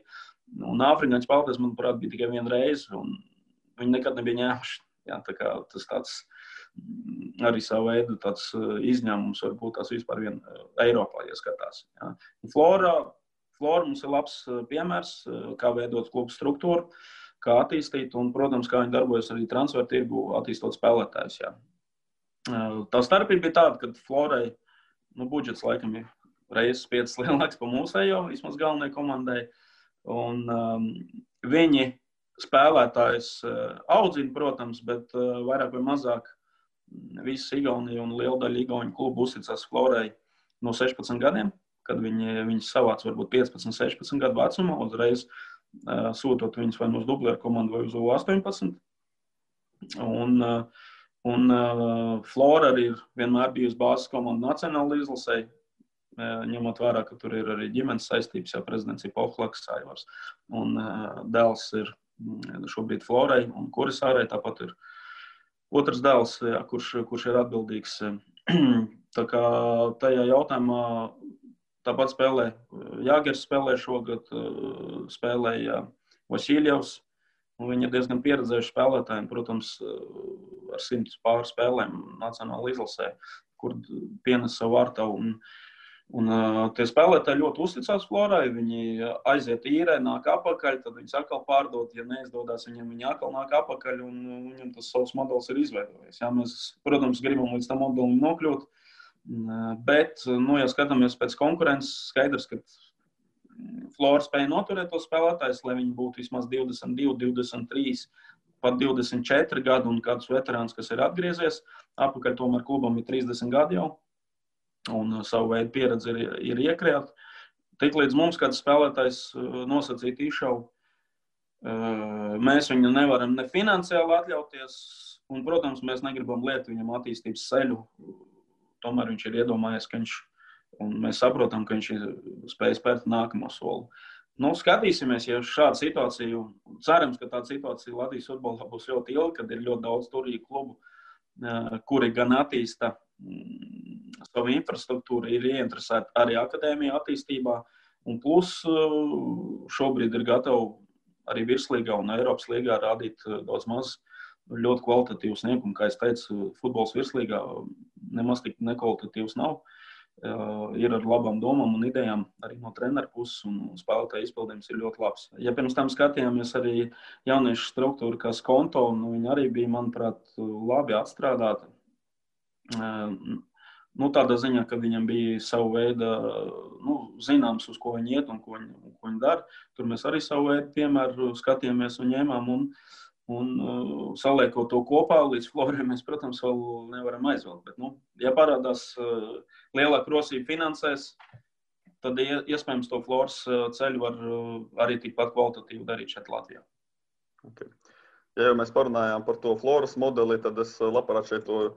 afrikāņu spēlētājs, manuprāt, bija tikai viena reize, un viņi nekad nebija ņēmuši. Jā, tā kā tas tāds arī savu veidu tāds izņēmums varbūt tās vispār vien Eiropā, ja skatās. Jā. Flora mums ir labs piemērs, kā veidot klubu struktūru, kā attīstīt un, protams, kā viņi darbojas arī transfer tirgu, attīstot spēlētājus. Jā. Tā starpība bija tāda, ka Florai budžets laikam ir reizes 5 lielāks pa mūsējo, vismaz galvenajai komandai. Un viņi spēlētājus audzina, protams, bet vairāk vai mazāk visas Igaunija un liela daļa Igauņu klubu uzticās Florai no 16 gadiem, kad viņi savāc varbūt 15, 16 gadu vecumā, uzreiz sūtot viņus vai uz dublēru komandu vai uz U18. Un Flora arī ir vienmēr bijusi bāzes komanda nacionāla izlasē, ņemot vērā, ka tur ir arī ģimenes saistības, jau prezidents ir Pohlaks, Aivars, un dēls ir šobrīd Florai un Kurisārai, tāpat ir otrs dēls, jā, kurš ir atbildīgs. Tā kā tajā jautājumā tāpat spēlē Jāgers spēlē šogad, spēlēja Vasiljevs, un viņi ir diezgan pieredzējuši spēlētāji, protams, ar 100 pār spēlēm nacionāla izlasē, kur pienes savu vārtavu. Un tie spēlētāji ļoti uzticās Florai, viņi aiziet īrē, nāk apakaļ, tad viņi atkal pārdod, ja neizdodas viņiem, viņi atkal nāk apakaļ, un viņam tas savs modelis ir izveidojies. Jā, mēs, protams, gribam līdz tam modelim nokļūt, bet, ja skatāmies pēc konkurences, skaidrs, ka Flora spēja noturēt tos spēlētājus, lai viņi būtu vismaz 22, 23, pat 24 gadu un kādus veterāns, kas ir atgriezies. Apakaļ tomēr klubam ir 30 gadi jau. Un savu veidu pieredzi ir iekrāt. Tik līdz mums kāds spēlētājs nosacīt izšaubu, mēs viņu nevaram ne finansiāli atļauties, un, protams, mēs negribam liekt viņam attīstības ceļu. Tomēr viņš ir iedomājies, ka un mēs saprotam, ka viņš ir spējis spērt nākamo soli. Skatīsimies, ja šāda situācija, cerams, ka tāda situācija Latvijas futbolā būs ļoti ilga, kad ir ļoti daudz turīgu klubu, kuri gan attīsta savu infrastruktūru, ir ieinteresēti arī akadēmija attīstībā, un plus šobrīd ir gatavi arī virslīgā un Eiropas līgā rādīt daudz maz ļoti kvalitatīvu sniegumu. Kā es teicu, futbols virslīgā nemaz tik nekvalitatīvs nav. Ir ar labām domām un idejām arī no treneru puses, un spēlētāju izpildījums ir ļoti labs. Ja pirms tam skatījāmies arī jauniešu struktūru, kā Skonto, viņi arī bija, manuprāt, labi atstrādāti. Tādā ziņā, ka viņam bija savu veidu, zināms, uz ko viņi iet un ko viņi dara. Tur mēs arī savu veidu piemēru skatījāmies un ņēmām un saliekot to kopā līdz Florai mēs, protams, vēl nevaram aizvilkt. Bet, ja parādās lielāka rosība finansēs, tad iespējams to Floras ceļu var arī tikpat kvalitatīvi darīt šeit Latvijā. Okay. Ja jau mēs parunājām par to Floras modeli, tad es labprāt šeit to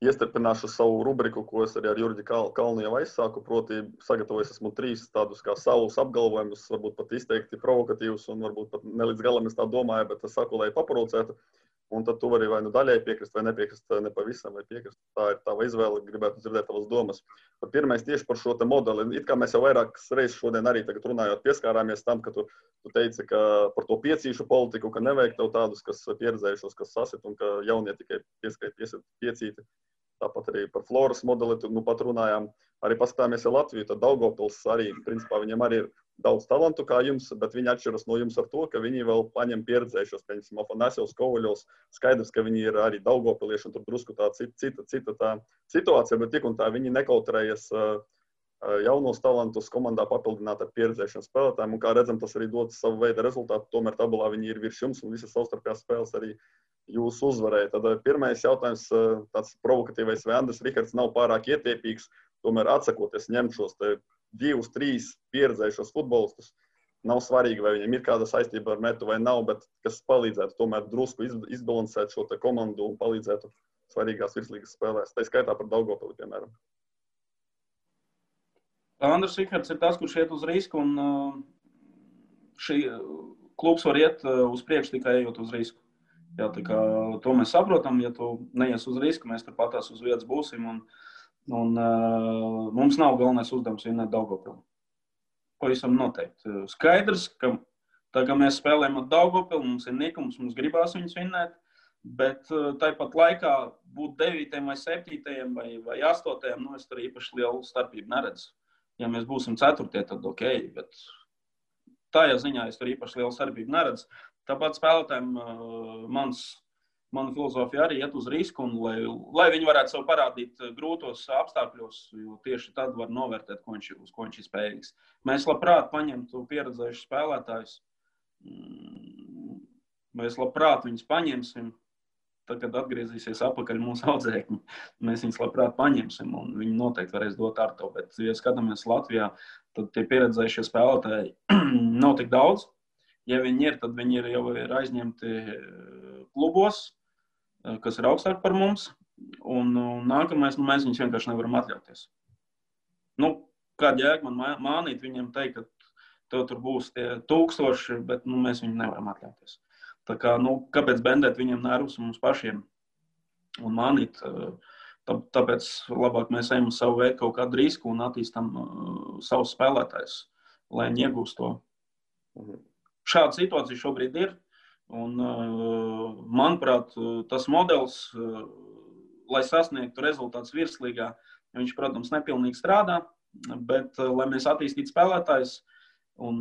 iestrpināšu savu rubriku, ko es arī ar Jurģi Kalnu jau aizsāku, proti sagatavojis esmu 3 tādus kā savus apgalvojumus, varbūt pat izteikti provokatīvus un varbūt pat ne līdz galam es tā domāju, bet es saku, lai paprovocētu. Un tad tu vari vai daļai piekrist, vai nepiekrist, ne pavisam, vai piekrist. Tā ir tava izvēle, gribētu dzirdēt tavas domas. Pirmais tieši par šo te modeli. It kā mēs jau vairākas reizes šodien arī tagad runājot pieskārāmies tam, ka tu teici, ka par to piecīšu politiku, ka nevajag tev tādus, kas pieredzējušos, kas sasit, un ka jaunie tikai piecīti. Tāpat arī par Floras modeli, pat runājām, arī paskatāmies ar Latviju, tad Daugavpils arī, principā, viņam arī ir daudz talantu kā jums, bet viņi atšķiras no jums ar to, ka viņi vēl paņem pieredzējušos, piemēram, Afanasjevs, Kovaļovs, skaidrs, ka viņi ir arī daugavpilieši, un tur drusku tā cita tā situācija, bet tik un tā viņi nekautrējas jaunos talantus komandā papildināt ar pieredzējušiem spēlētājiem, un kā redzam, tas arī dod savu veidu rezultātu, tomēr tabulā viņi ir virs jums, un visas savstarpējās spēles arī jūs uzvarēja. Tad pirmais jautājums, tāds provokatīvais, vai Andris Rihards nav pārāk ietiepīgs, tomēr atsakoties ņemt šos 2-3 pieredzējušos futbolistus. Nav svarīgi, vai viņiem ir kāda saistība ar metu vai nav, bet kas palīdzētu tomēr drusku izbalansēt šo te komandu un palīdzētu svarīgās virslīgas spēlēs. Tā skaitā par Daugavpili, piemēram. Andris Rihards ir tas, kurš iet uz risku, un šī klubs var iet uz priekšu tikai ejot uz risku. Jā, tā kā to mēs saprotam, ja tu neies uz risku, mēs tur patās uz vietas būsim, un mums nav galvenais uzdevums vinēt Daugavpili. Pavisam noteikti. Skaidrs, ka tā kā mēs spēlējam ar Daugavpili, mums ir nikums, mums gribās viņus vinēt, bet tāpat laikā būt 9. vai 7. vai 8. Es tur īpaši lielu starpību neredzu. Ja mēs būsim 4. tad ok, bet tajā ziņā es tur īpaši lielu starpību neredzu. Tāpat spēlētājiem mana filozofija arī iet uz risku, un lai viņi varētu sev parādīt grūtos apstākļos, jo tieši tad var novērtēt, uz ko viņš ir spējīgs. Mēs labprāt paņemtu pieredzējušus spēlētājus. Mēs labprāt viņus paņemsim, tad, kad atgriezīsies apakaļ mūsu audzēkņi. Mēs viņus labprāt paņemsim, un viņi noteikti varēs dot ar to. Bet, ja skatāmies Latvijā, tad tie pieredzējušie spēlētāji nav tik daudz. Ja viņi ir, tad viņi jau ir aizņemti klubos, kas ir augstāk par mums, un nākamais, mēs viņus vienkārši nevaram atļauties. Kāda jēga man mānīt viņiem teikt, ka tev tur būs tie 1000, bet mēs viņu nevaram atļauties. Tā kā, kāpēc bendēt viņiem nervus mums pašiem un mānīt, tāpēc labāk mēs ejam uz savu veidu kaut kādu risku un attīstam savus spēlētājus, lai viņi iegūst to. Šāda situācija šobrīd ir, un, manuprāt, tas modelis, lai sasniegtu rezultātus virslīgā, viņš, protams, nepilnīgi strādā, Bet, lai mēs attīstītu spēlētājus, un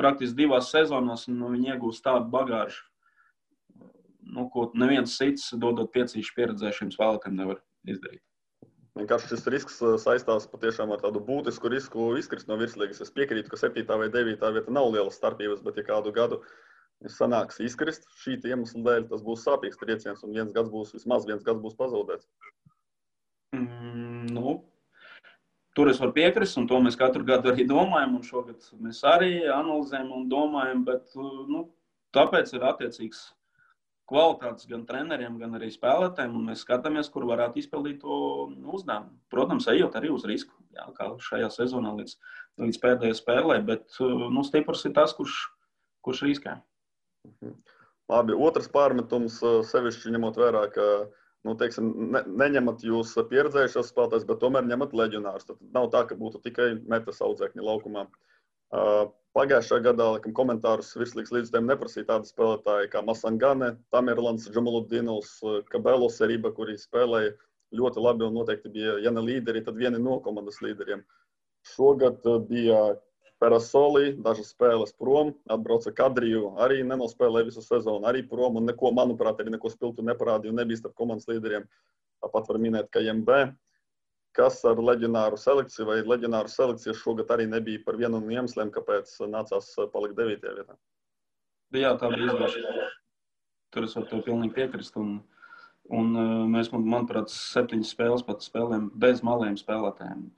praktiski 2 sezonās viņi iegūst tādu bagāžu, ko neviens cits, dodot piecīšu pieredzējušiem spēlētājiem, nevar izdarīt. Vienkārši šis risks saistās patiešām ar tādu būtisku risku izkrist no virslīgas. Es piekrītu, ka 7. vai 9. vieta nav lielas starpības, bet ja kādu gadu sanāks izkrist šī iemesla dēļ, tas būs sāpīgs trieciens un vismaz viens gads būs pazaudēts. Tur es varu piekrist, un to mēs katru gadu arī domājam, un šogad mēs arī analizējam un domājam, bet tāpēc ir attiecīgs kvalitātes gan treneriem, gan arī spēlētājiem, un mēs skatāmies, kur varētu izpildīt to uzdevumu. Protams, ejot arī uz risku, kā šajā sezonā līdz pēdējai spēlē, bet stiprs ir tas, kurš riskē. Labi, otrs pārmetums sevišķi ņemot vērā, ka neņemat jūs pieredzējušos spēlētājus, bet tomēr ņemat leģionārus. Tad nav tā, ka būtu tikai metas audzēkņi laukumā. Pagājušā gadā komentārus virslīgas līdzstājiem neprasīja tādi spēlētāji kā Masangane, Tamerlans, Džamaludinovs, Kabelo Seriba, kuri spēlēja ļoti labi un noteikti bija, ja ne līderi, tad vieni no komandas līderiem. Šogad bija Perasoli, dažas spēles prom, atbrauca Kadriju, arī nenospēlēja visu sezonu, arī prom un neko, manuprāt, arī neko spilgtu neparādīja un nebija starp komandas līderiem. Tāpat var minēt, ka MB. Kas ar leģionāru selekciju vai leģionāru selekciju šogad arī nebija par vienu no iemesliem, kāpēc nācās palikt 9. vietā. Jā, tā bija izgāšana. Tur es varu tev pilnīgi piekrist. Un mēs, manuprāt, 7 spēles pat spēlējam bez maliem spēlētājiem.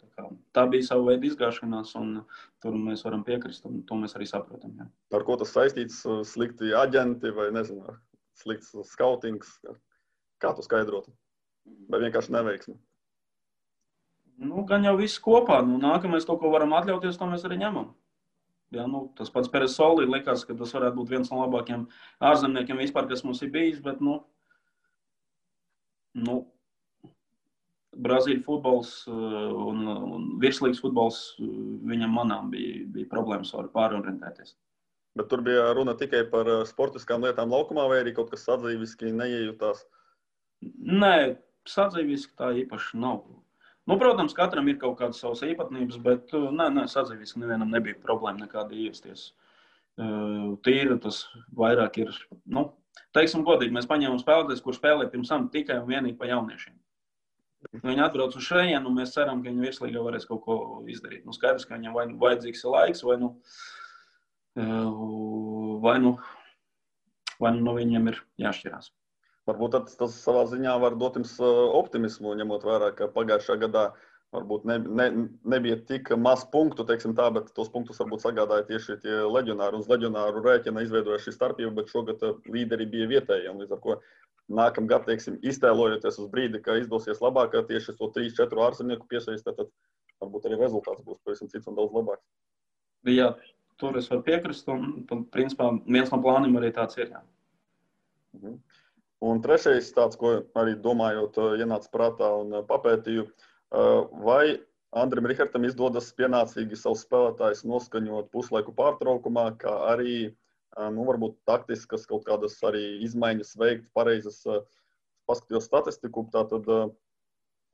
Tā bija sava veida izgāšanās, un tur mēs varam piekrist, un to mēs arī saprotam. Jā. Ar ko tas saistīts? Slikti aģenti vai, nezinu, slikts skautings? Kā tu skaidrotu? Vai vienkārši neveiksmi? Gan jau viss kopā. Nākamais kaut ko varam atļauties, to mēs arī ņemam. Jā, tas pats Perasoli likās, ka tas varētu būt viens no labākajiem ārzemniekiem vispār, kas mums ir bijis, bet, Brazīļu futbols un virslīgas futbols viņam manām bija problēmas ar pārorientēties. Bet tur bija runa tikai par sportiskām lietām laukumā vai arī kaut kas sadzīviski neiejūtās? Nē, sadzīviski tā īpaši nav. Protams, katram ir kaut kādas savas īpatnības, bet sadzīviski nevienam nebija problēma nekāda ievesties. Tīri tas vairāk ir, teiksim godīgi, mēs paņēmām spēlētājus, kur spēlē pirms tam tikai un vienīgi pa jauniešiem. Viņi atbrauc uz šejienu, un mēs ceram, ka viņi virslīgā varēs kaut ko izdarīt. Skaidrs, ka viņam vai vajadzīgs ir laiks, vai nu viņam ir jāšķirās. Varbūt tas savā ziņā var dot jums optimismu, ņemot vērā, ka pagājušā gadā varbūt nebija tik maz punktu, teiksim tā, bet tos punktus varbūt sagādāja tieši tie leģionāri. Uz leģionāru rēķina izveidoja šī starpība, bet šogad līderi bija vietēji. Līdz ar ko nākamgad, teiksim, iztēlojoties uz brīdi, ka izdosies labāk, tieši to 3-4 ārzemnieku piesaistīt, tad varbūt arī rezultāts būs pavisam cits un daudz labāks. Jā, tur es varu piekrist, un principā viens no plāniem arī tāds ir. Jā. Un trešais tāds, ko arī domājot, ienāca prātā un papētīju, vai Andrim Rihartam izdodas pienācīgi savus spēlētājus noskaņot puslaiku pārtraukumā, kā arī, varbūt taktiskas kaut kādas arī izmaiņas veikt, pareizas paskatījos statistiku. Tātad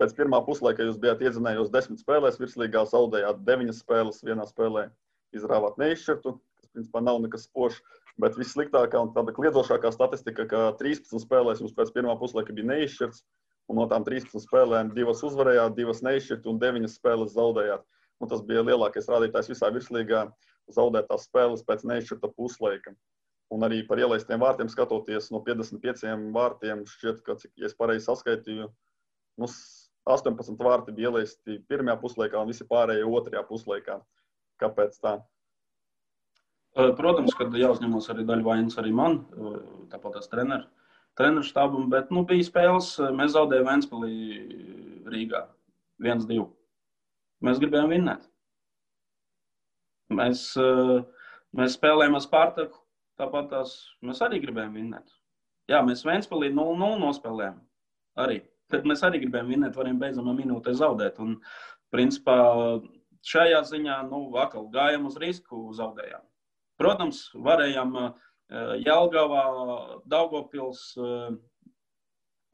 pēc pirmā puslaika jūs bijāt iedzinējos 10 spēlēs, virslīgā zaudējāt 9 spēles, vienā spēlē izrāvāt neizšķirtu, kas principā nav nekas spožs. Bet vissliktākā un tāda kliedzošākā statistika, ka 13 spēlēs jums pēc pirmā puslaika bija neizšķirts, un no tām 13 spēlēm 2 uzvarējāt, 2 neizšķirt un 9 spēles zaudējāt. Un tas bija lielākais rādītājs visā virslīgā zaudētās spēles pēc neizšķirta puslaika. Un arī par ielaistiem vārtiem skatoties, no 55 vārtiem šķiet, ka, ja es pareizi saskaitīju, 18 vārti bija ielaisti pirmajā puslaikā un visi pārējie otrajā puslaikā. Kāpēc tā? Protams, ka jāuzņemos arī daļa vainas arī man, tāpat tās treneru štābam, bet bija spēles, mēs zaudējām Ventspilī Rīgā 1-2. Mēs gribējām vinnēt. Mēs spēlējām ar Spartaku, tāpat tās mēs arī gribējām vinnēt. Jā, mēs Ventspilī 0-0 nospēlējām arī. Tad mēs arī gribējām vinnēt, varējām beidzamā minūtē zaudēt. Un, principā, šajā ziņā, atkal gājām uz risku, zaudējām. Protams, varējām Jelgavā, Daugavpils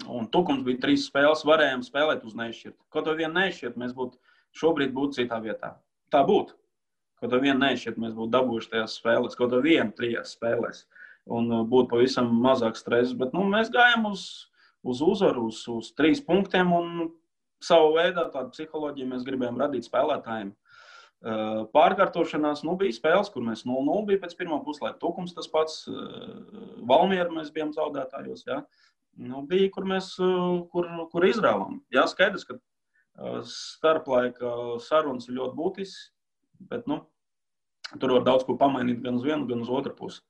un Tukums bija 3 spēles, varējām spēlēt uz neizšķirtu. Kaut vai vienu neizšķirtu, mēs būtu šobrīd būtu citā vietā. Tā būtu. Kaut ar vienu nešķiet, mēs būtu dabūjuši tajās spēlēs, kaut ar vienu 3 spēlēs. Un būtu pavisam mazāk stresa. Bet mēs gājām uz uzvaru, uz 3 punktiem. Un savu veidā tādu psiholoģiju mēs gribējām radīt spēlētājiem. Pārkārtošanās bija spēles, kur mēs 0-0 bija pēc pirmā puslaika. Tukums tas pats, Valmieru mēs bijām zaudētājos. Ja? Bija, kur mēs kur izrāvām. Jā, skaidrs, ka starplaika sarunas ir ļoti būtisks, bet tur var daudz ko pamainīt gan uz vienu, gan uz otru pusi.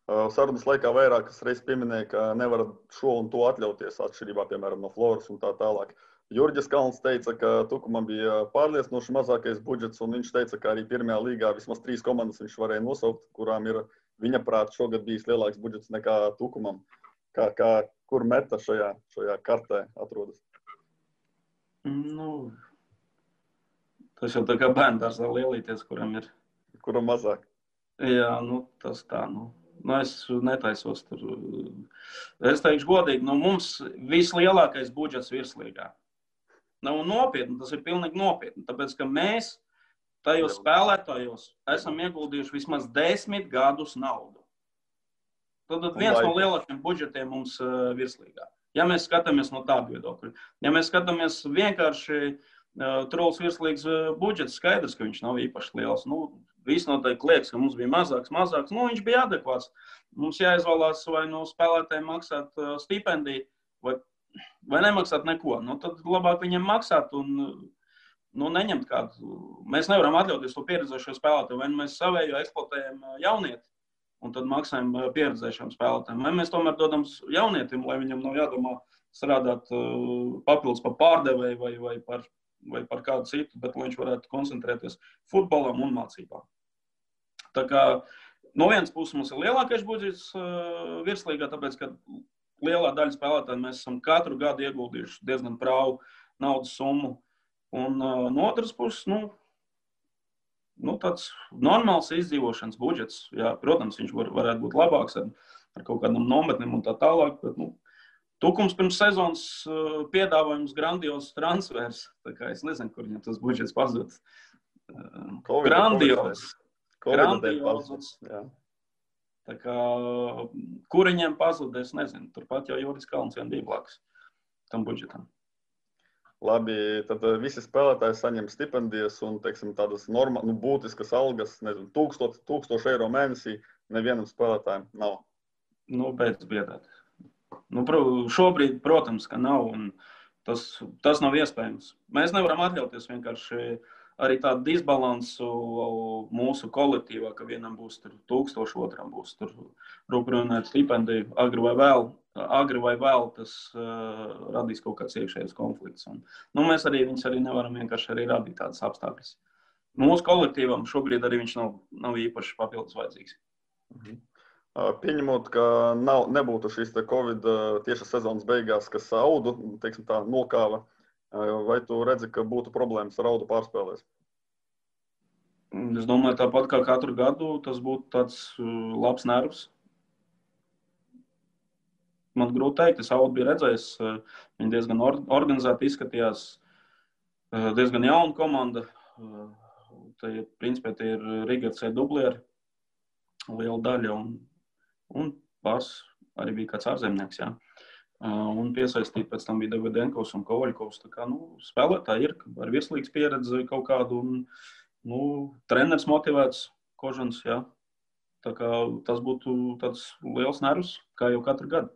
Sarunas laikā vairākas reizes pieminēja, ka nevar šo un to atļauties atšķirībā, piemēram, no Floras un tā tālāk. Jurģis Kalns teica, ka Tukumam bija pārliecinoši mazākais budžets, un viņš teica, ka arī pirmajā līgā vismaz 3 komandas viņš varēja nosaukt, kurām ir viņa prāt šogad bijis lielāks budžets nekā Tukumam. Kur Meta šajā kartē atrodas? Tas jau tā kā bērndārzā lielīties, kuram ir. Kuram mazāk? Jā, tas tā, es netaisos tur. Es teikšu godīgi, mums vislielākais budžets virslīgā. Nav nopietni, tas ir pilnīgi nopietni, tāpēc, ka mēs tajos spēlētājos esam ieguldījuši vismaz 10 gadus naudu. Tad viens no lielākiem budžetiem mums virslīgā. Ja mēs skatāmies no tādu viedokļu. Ja mēs skatāmies vienkārši Truls virslīgas budžets, skaidrs, ka viņš nav īpaši liels. Viss noteikti liekas, ka mums bija mazāks. Viņš bija adekvāts. Mums jāizvēlās vai no spēlētājiem maksāt stipendiju, vai nemaksāt neko. Tad labāk viņiem maksāt un neņemt kādu. Mēs nevaram atļauties to pieredzējušo spēlētāju. Vai mēs savējo eksploatējam jaunieti un tad maksājam pieredzējušiem spēlētājiem. Vai mēs tomēr dodam jaunietim, lai viņam nav jādomā strādāt papildus par pārdevēju vai par kādu citu, bet lai viņš varētu koncentrēties futbolam un mācībām. Tā kā no vienas puses mums ir lielākais budžets virslīgā, tāpēc, ka lielā daļa spēlētāji mēs esam katru gadu ieguldījuši diezgan prāvu naudas summu. Un no otras puses, tāds normāls izdzīvošanas budžets. Jā, protams, viņš varētu būt labāks ar kaut kādam nometnēm un tā tālāk, bet Tukums pirms sezonas piedāvājums grandios transfers. Tā kā es nezinu, kur viņam tas budžets pazud. Grandios. Tā kā, kur viņiem pazud, es nezinu. Turpat jau Juris Kalns vien bija blakus tam budžetam. Labi, tad visi spēlētāji saņem stipendijas un, teiksim, tādas būtiskas algas, nezinu, 1000 eiro mēnesī nevienam spēlētājiem nav. Beidz biedēt. Šobrīd, protams, ka nav, un tas nav iespējams. Mēs nevaram atļauties vienkārši arī tādu disbalansu mūsu kolektīvā, ka vienam būs 1000, otram būs rūprināt stipendiju, agri vai vēl tas radīs kaut kāds iekšējais konflikts. Mēs viņus arī nevaram vienkārši arī radīt tādas apstākļas. Mūsu kolektīvam šobrīd arī viņš nav īpaši papildus vajadzīgs. Pieņemot, ka nebūtu šīs Covid tieši sezonas beigās, kas audu, teiksim tā, nokāva, vai tu redzi, ka būtu problēmas ar audu pārspēlēs? Es domāju, tāpat kā katru gadu, tas būtu tāds labs nervs. Man grūti teikt, es audu biju redzējis, viņi diezgan organizēti izskatījās, diezgan jauna komanda. Principā tie ir Rigardsē dublieri, liela daļa, un pāris arī bija kāds ārzemnieks, jā. Un piesaistīt pēc tam bija Davidenkovs un Kovaļkovs. Tā kā, spēlētāji ir ar virslīgas pieredzi kaut kādu, un treneris motivēts, Kožans, jā. Tā kā tas būtu tāds liels nervs, kā jau katru gadu.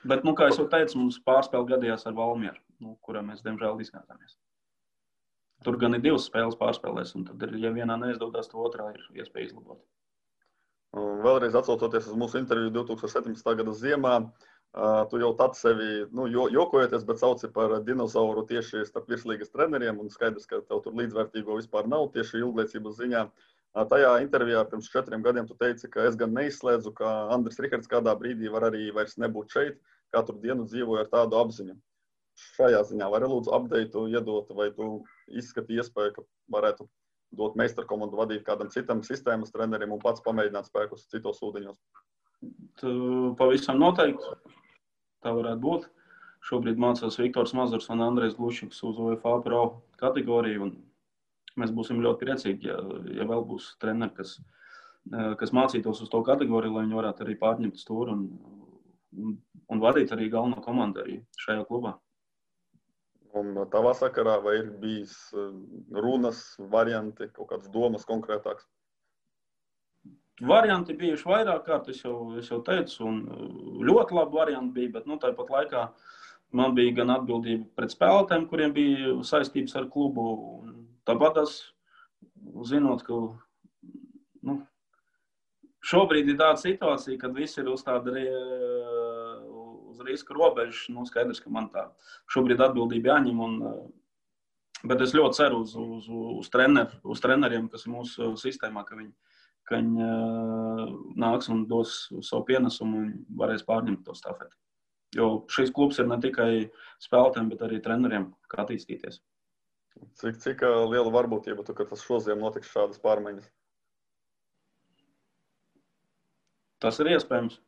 Bet, kā es jau teicu, mums pārspēle gadījās ar Valmieru, kurā mēs, diemžēl, izgāzāmies. Tur gan ir 2 spēles pārspēlēs, un tad, ja vienā neizdodas, to otrā ir iespēja izlabot. Vēlreiz atsaucoties uz mūsu interviju 2017. gada ziemā, tu jau tad sevi, jokojoties, bet sauci par dinozauru tieši starp virslīgas treneriem, un skaidrs, ka tev tur līdzvērtīgo vispār nav tieši ilgliecības ziņā. Tajā intervijā pirms 4 gadiem tu teici, ka es gan neizslēdzu, ka Andris Rihards kādā brīdī var arī vairs nebūt šeit, katru dienu dzīvoja ar tādu apziņu. Šajā ziņā vari lūdzu updateu iedot, vai tu izskati iespēju, ka varētu dot meistarkomandu vadīt kādam citam sistēmas trenerim un pats pamēģināt spēkus citos ūdeņos? Pavisam noteikti. Tā varētu būt. Šobrīd mācās Viktors Mazurs un Andrejs Glušiks uz UEFA Pro kategoriju. Un mēs būsim ļoti priecīgi, ja vēl būs treneri, kas mācītos uz to kategoriju, lai viņi varētu arī pārņemt stūri un vadīt arī galveno komandu arī šajā klubā. Un tavā sakarā vai ir bijis runas, varianti, kaut kādas domas konkrētākas? Varianti bijuši vairāk kārt, es jau teicu, un ļoti labi varianti bija, bet tāpat laikā man bija gan atbildība pret spēlētājiem, kuriem bija saistības ar klubu, un tāpat es, zinot, ka šobrīd ir tāda situācija, kad viss ir uz tāda uz riska robežas, skaidrs, ka man tā šobrīd atbildība jāņem, bet es ļoti ceru uz treneriem, kas ir mūsu sistēmā, ka viņi nāks un dos savu pienesumu un varēs pārņemt to stafeti. Jo šis klubs ir ne tikai spēlētājiem, bet arī treneriem, kā attīstīties. Cik liela varbūtība, ka tas šoziem notiks šādas pārmaiņas? Tas ir iespējams.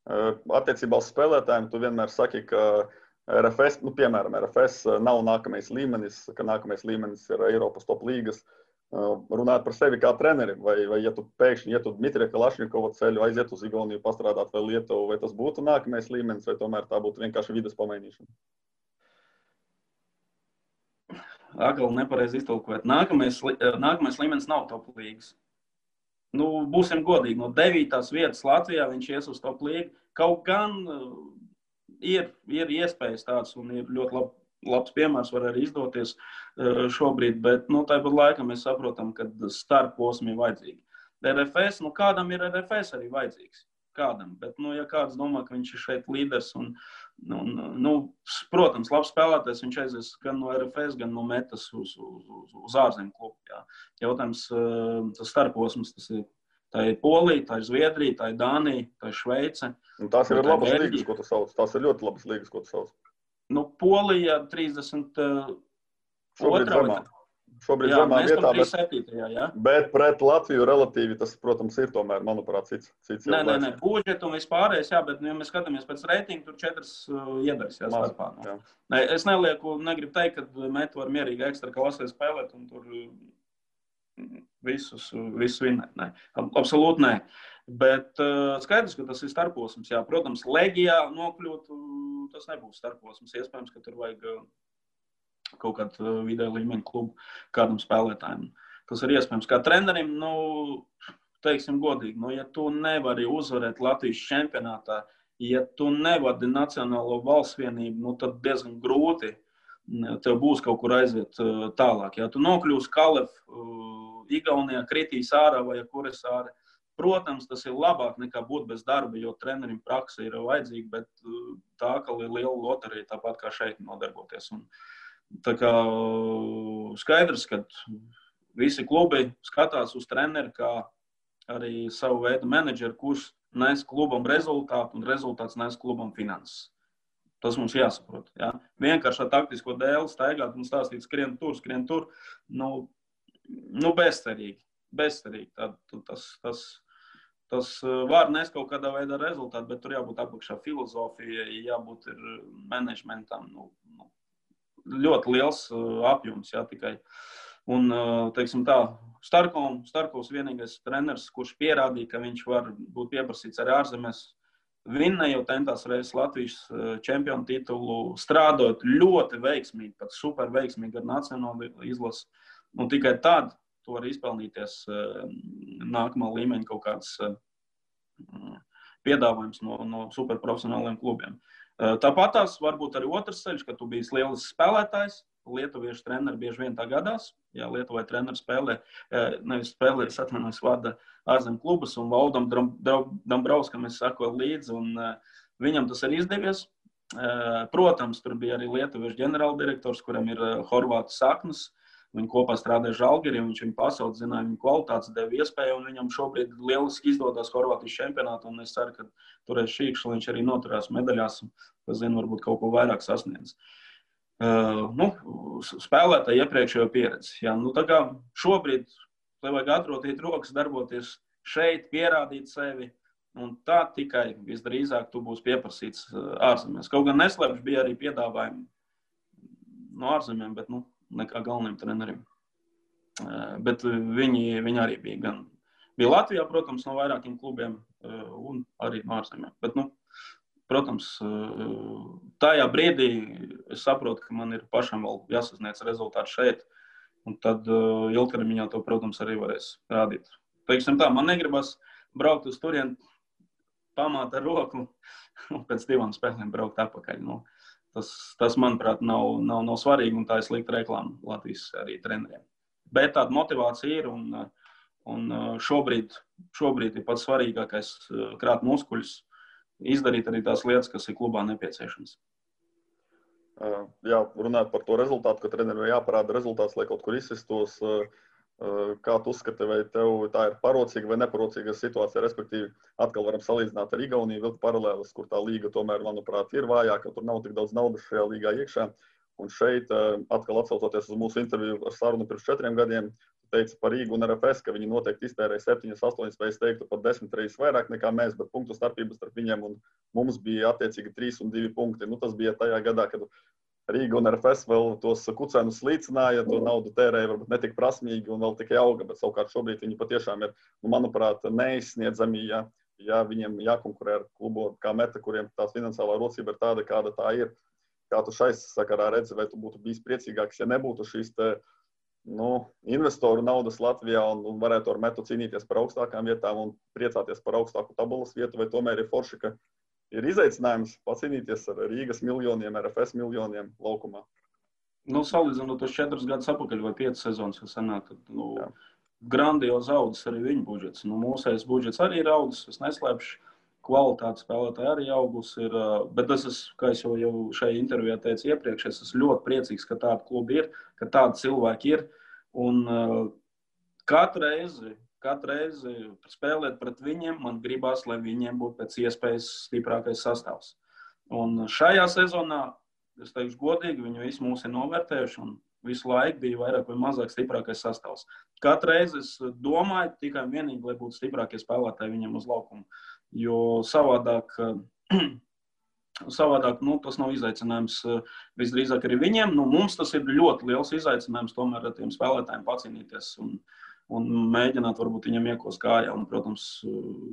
Attiecībā uz spēlētājiem tu vienmēr saki, ka RFS, piemēram, RFS nav nākamais līmenis, ka nākamais līmenis ir Eiropas top līgas. Runāt par sevi kā treneri, vai ja tu pēkšņi ietu Dmitrija Kalašņikova ceļu, aiziet uz Igauniju, pastrādāt vai Lietuvu, vai tas būtu nākamais līmenis, vai tomēr tā būtu vienkārši vides pamainīšana? Agal nepareizi iztulkot. Nākamais līmenis nav top līgas. Būsim godīgi, no 9. vietas Latvijā viņš ies uz top līgu. Kaut gan ir iespējas tāds un ir ļoti labs piemērs, var arī izdoties šobrīd, bet tāpat laikā mēs saprotam, ka starposmi ir vajadzīgi. RFS, kādam ir RFS arī vajadzīgs? Kādam, bet, ja kāds domā, ka viņš ir šeit līderis un protams, labs spēlētājs, viņš aizies gan no RFS, gan no Metas uz ārzemju klubu. Jā. Jautājums, tas starposms, tā ir Polija, tā ir Zviedrija, tā ir Dānija, tā ir Šveice. Tās ir labas līgas, ko tu sauc. Tās ir ļoti labas līgas, ko tu sauc. Polija 32. Šobrīd zemā vietā, 37. Bet pret Latviju relatīvi tas, protams, ir tomēr, manuprāt, cits. Nē, budžetu un vispārējais, bet, ja mēs skatāmies pēc reitingu, tur 4 iedaras starpā. Es negribu teikt, ka Meta var mierīgi ekstra klasē spēlēt un tur visus vinnēt. Nē, absolūti nē. Bet skaidrs, ka tas ir starposms. Jā, protams, Legijā nokļūt, tas nebūs starposms. Iespējams, ka tur vajag kaut kādu vidēja līmeņa klubu kādam spēlētājiem. Tas ir iespējams. Kā trenerim, teiksim godīgi, ja tu nevari uzvarēt Latvijas čempionātā, ja tu nevadi Nacionālo valsts vienību, tad diezgan grūti tev būs kaut kur aiziet tālāk. Ja tu nokļūsi Kalev, Igaunijā, kritīs ārā vai kuras ārā, protams, tas ir labāk nekā būt bez darba, jo trenerim praksa ir vajadzīga, bet tā kā ir liela loterija, tāpat kā šeit nodarboties. Un, tā kā skaidrs, ka visi klubi skatās uz treneri kā arī savu veidu menedžeri, kurš nes klubam rezultātu un rezultāts nes klubam finanses. Tas mums jāsaprot. Ja? Vienkārši ar taktisko dēli staigāt un stāstīt skrien tur, bezcerīgi. Tas var nest kaut kādā veidā rezultātu, bet tur jābūt apakšā filozofijai, jābūt ir menedžmentam. Ļoti liels apjoms, jā, tikai. Un, teiksim tā, Starkovs vienīgais treneris, kurš pierādīja, ka viņš var būt pieprasīts arī ārzemēs, vinnēja jau tentās reizes Latvijas čempionu titulu, strādājot ļoti veiksmīgi, pat super veiksmīgi ar nacionālu izlasi. Un tikai tad tu vari izpelnīties nākamā līmeņa kaut kāds piedāvājums no superprofesionāliem klubiem. Tāpat tās varbūt arī otrs ceļš, ka tu biji lielisks spēlētājs. Lietuviešu treneri bieži vien tā gadās. Jā, Lietuvai treneri vada ārzemju klubus, un Valdam Dambrauskam es sakoju līdzi, un viņam tas ir izdevies. Protams, tur bija arī lietuviešu ģenerāldirektors, kuram ir horvātu saknes. Viņi kopā strādāja Žalgirī, viņš viņu pasaules zināja, viņu kvalitātes deva iespēju, un viņam šobrīd lieliski izdodas Horvātijas čempionātu, un es ceru, ka turēs šīkšu, viņš arī noturās medaļās, un, kas zinu, varbūt kaut ko vairāk sasniedz. Spēlētāji iepriekšējo pieredzi. Jā, tā kā šobrīd tev vajag atrotīt rokas, darboties šeit, pierādīt sevi, un tā tikai visdrīzāk tu būsi pieprasīts ārzemēs. Kaut gan neslēpš bija arī piedāvājumi no ārzemēm, bet nekā galvenajam trenerim. Bet viņi arī bija Latvijā, protams, no vairākiem klubiem un arī no ārzemēm. Bet, protams, tajā brīdī es saprotu, ka man ir pašam vēl jāsasniedz rezultāti šeit, un tad ilgtermiņā to, protams, arī varēs rādīt. Teiksim tā, man negribas braukt uz turieni, pamāt ar roku un pēc 2 spēlēm braukt atpakaļ. Tas manuprāt, nav svarīgi, un tā ir slikta reklāma Latvijas arī treneriem. Bet tāda motivācija ir, un šobrīd ir pats svarīgākais krāt muskuļus, izdarīt arī tās lietas, kas ir klubā nepieciešamas. Jā, runājot par to rezultātu, ka trenerim jāparāda rezultāts, lai kaut kur izsistos. Kā tu uzskati, vai tev tā ir parocīga vai neparocīga situācija, respektīvi atkal varam salīdzināt ar Igauniju, vilkt paralēlis, kur tā līga tomēr, manuprāt, ir vājāka, tur nav tik daudz naudas šajā līgā iekšā. Un šeit, atkal atsaucoties uz mūsu interviju ar sarunu pirms 4 gadiem, teica par Rīgu un RFS, ka viņi noteikti iztērēja 7, 8, vai es teiktu pat 10 reizes vairāk nekā mēs, bet punktu starpības starp viņiem un mums bija attiecīgi 3 un 2 punkti. Tas bija tajā gadā, kad Rīga un RFS vēl tos kucenus slīcināja, to naudu tērēja varbūt netik prasmīgi un vēl tikai auga, bet savukārt šobrīd viņi patiešām ir, manuprāt, neizsniedzami, ja viņiem jākonkurē ar klubu kā Meta, kuriem tā finansiālā rocība ir tāda, kāda tā ir. Kā tu šai sakarā redzi, vai tu būtu bijis priecīgāks, ja nebūtu šīs investoru naudas Latvijā un varētu ar Metu cīnīties par augstākām vietām un priecāties par augstāku tabulas vietu, vai tomēr ir forši, ka ir izaicinājums pacīnīties ar Rīgas miljoniem, RFS miljoniem laukumā? Salīdzinot tos 4 gadus atpakaļ vai 5 sezonas, kas sanāk, tad grandiozi audzis arī viņu budžets. Mūsējais budžets arī ir audzis, es neslēpšu. Kvalitāte spēlētāji arī augus ir, bet kā es jau šajā intervijā teicu iepriekš, es esmu ļoti priecīgs, ka tāda kluba ir, ka tādi cilvēki ir. Un katru reizi spēlēt pret viņiem, man gribās, lai viņiem būtu pēc iespējas stiprākais sastāvs. Un šajā sezonā, es teikšu godīgi, viņi visi mūs ir novērtējuši un visu laiku bija vairāk vai mazāk stiprākais sastāvs. Katru reizi es domāju tikai un vienīgi, lai būtu stiprākie spēlētāji viņiem uz laukumu. Jo savādāk tas nav izaicinājums visdrīzāk arī viņiem. Mums tas ir ļoti liels izaicinājums tomēr ar tiem spēlētājiem pacīnīties un mēģināt varbūt viņam iekos kājā un, protams,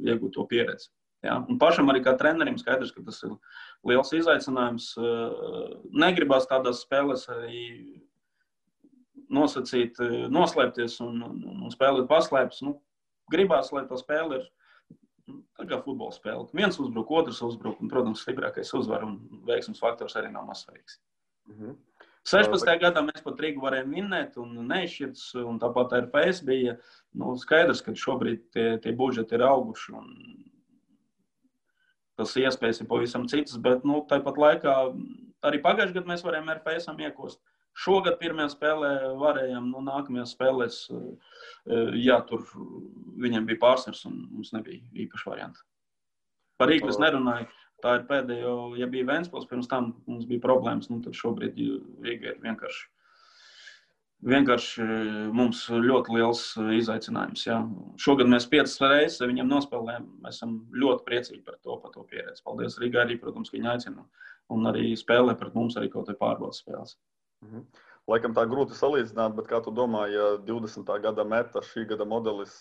iegūt to pieredzi. Ja? Un pašam arī kā trenerim skaidrs, ka tas ir liels izaicinājums. Negribās tādās spēlēs arī nosacīt, noslēpties un spēlēt paslēpes. Gribās, lai tā spēle ir tā kā futbola spēle. Viens uzbruk, otrs uzbruk, un, protams, stiprākais uzvar, un veiksmes faktors arī nav mazsvarīgs. 16. gadā mēs pat Rīgu varējām vinnēt un neizšķirts, un tāpat RFS bija skaidrs, ka šobrīd tie budžeti ir auguši, un tas iespējas ir pavisam citas, bet tāpat laikā arī pagājušajā gadā mēs varējām RFS-am iekost. Šogad pirmajā spēlē varējām, nākamajās spēlēs, tur viņiem bija pārsvars un mums nebija īpaši varianti. Par Rīgu es nerunāju, tā ir pēdējo, ja bija Ventspils, pirms tam mums bija problēmas, tad šobrīd Rīga ir vienkārši mums ļoti liels izaicinājums. Jā. Šogad mēs 5 reizes viņiem nospēlējām, mēs esam ļoti priecīgi par to pieredzi. Paldies Rīgai arī, protams, ka viņi aicina un arī spēlē pret mums arī kaut vai pārbaudas spēles. Laikam tā grūti salīdzināt, bet kā tu domā, ja 20. gada Meta šī gada modelis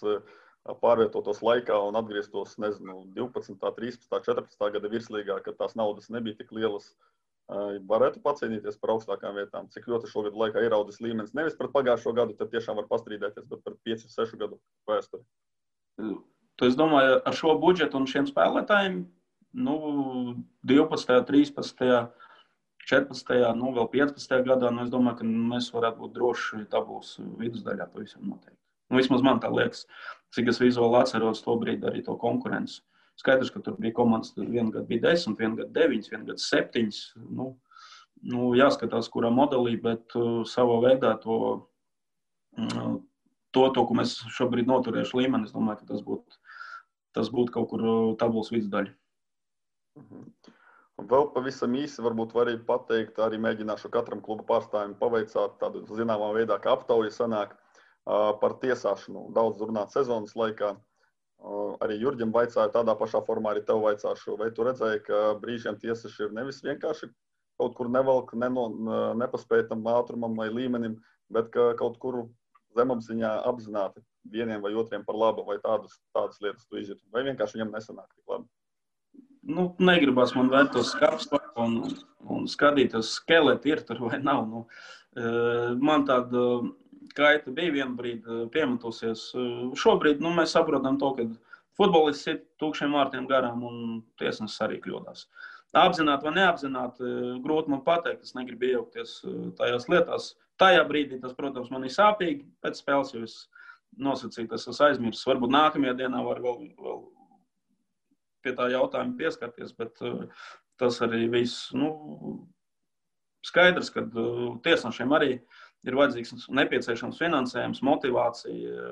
pārvietotos laikā un atgrieztos, 12., 13., 14. gada virslīgā, kad tās naudas nebija tik lielas, varētu pacīnīties par augstākām vietām? Cik ļoti šogad laikā ir audzis līmenis? Nevis pret pagājušo gadu, tad tiešām var pastrīdēties, bet pret 5-6 gadu vēsturi. Es domāju, ar šo budžetu un šiem spēlētājiem, 12., 13., 14., vēl 15. gadā, es domāju, ka mēs varētu būt droši tabulas vidusdaļā pavisam noteikti. Vismaz man tā liekas, cik es vizuāli atceros to brīdi arī to konkurenci. Skaidrs, ka tur bija komandas, vienu gadu bija 10, vienu gadu 9, vienu gadu 7. Jāskatās, kurā modelī, bet savā veidā to, ko mēs šobrīd noturējuši līmeni, es domāju, ka tas būtu kaut kur tabulas vidusdaļa. Vēl pavisam īsi varbūt var arī pateikt, arī mēģināšu katram kluba pārstāvim paveicāt tādu zināmā veidā, kā aptauja sanāk par tiesāšanu. Daudz runāt sezonas laikā. Arī Jurģim vaicāju tādā pašā formā, arī tev vaicāšu, vai tu redzēji, ka brīžiem tiesas ir nevis vienkārši kaut kur nevelk nepaspētam ātrumam vai līmenim, bet ka kaut kur zemapziņā apzināti vieniem vai otriem par labu, vai tādas lietas tu izjūti, vai vienkārši viņam nesanāk tik labi? Nu, negribas man vērt uz skapstu un skatīties, skeleti ir tur vai nav. Nu, man tāda kaita bija vienu brīdi piemetusies. Šobrīd mēs saprotam to, ka futbolists ir tūkšiem vārtiem garām un tiesnesis arī kļūdās. Apzināti vai neapzināti, grūti man pateikt, es negribu iejaukties tajās lietās. Tajā brīdī tas, protams, man ir sāpīgi pēc spēles, jo es nosacīju, tas es aizmirsu. Varbūt nākamajā dienā var vēl pie tā jautājuma pieskarties, bet tas arī viss, skaidrs, ka tiesnešiem arī ir vajadzīgs nepieciešams finansējums, motivācija,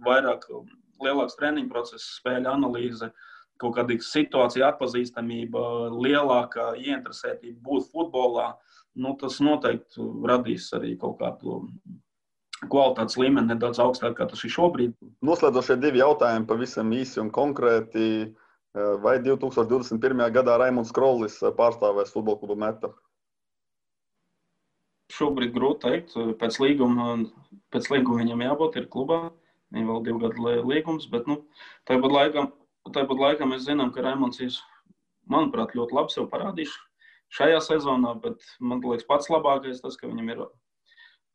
vairāk lielāks treniņu process, spēļu analīze, kaut kāda situācija atpazīstamība, lielākā ieinteresētība būt futbolā, tas noteikti radīs arī kaut kādu kvalitātes līmeni nedaudz augstāk, kā tas ir šobrīd. Noslēdzošie 2 jautājumi pavisam īsi un konkrēti. Vai 2021. gadā Raimunds Krollis pārstāvēs futbola klubu Meta? Šobrīd grūti teikt. Pēc līguma viņam jābūt ir klubā. Viņam vēl 2 gadu līgums, bet tāpat laikā mēs zinām, ka Raimunds ir, manuprāt, ļoti labi sev parādījis šajā sezonā, bet man liekas pats labākais tas, ka viņam ir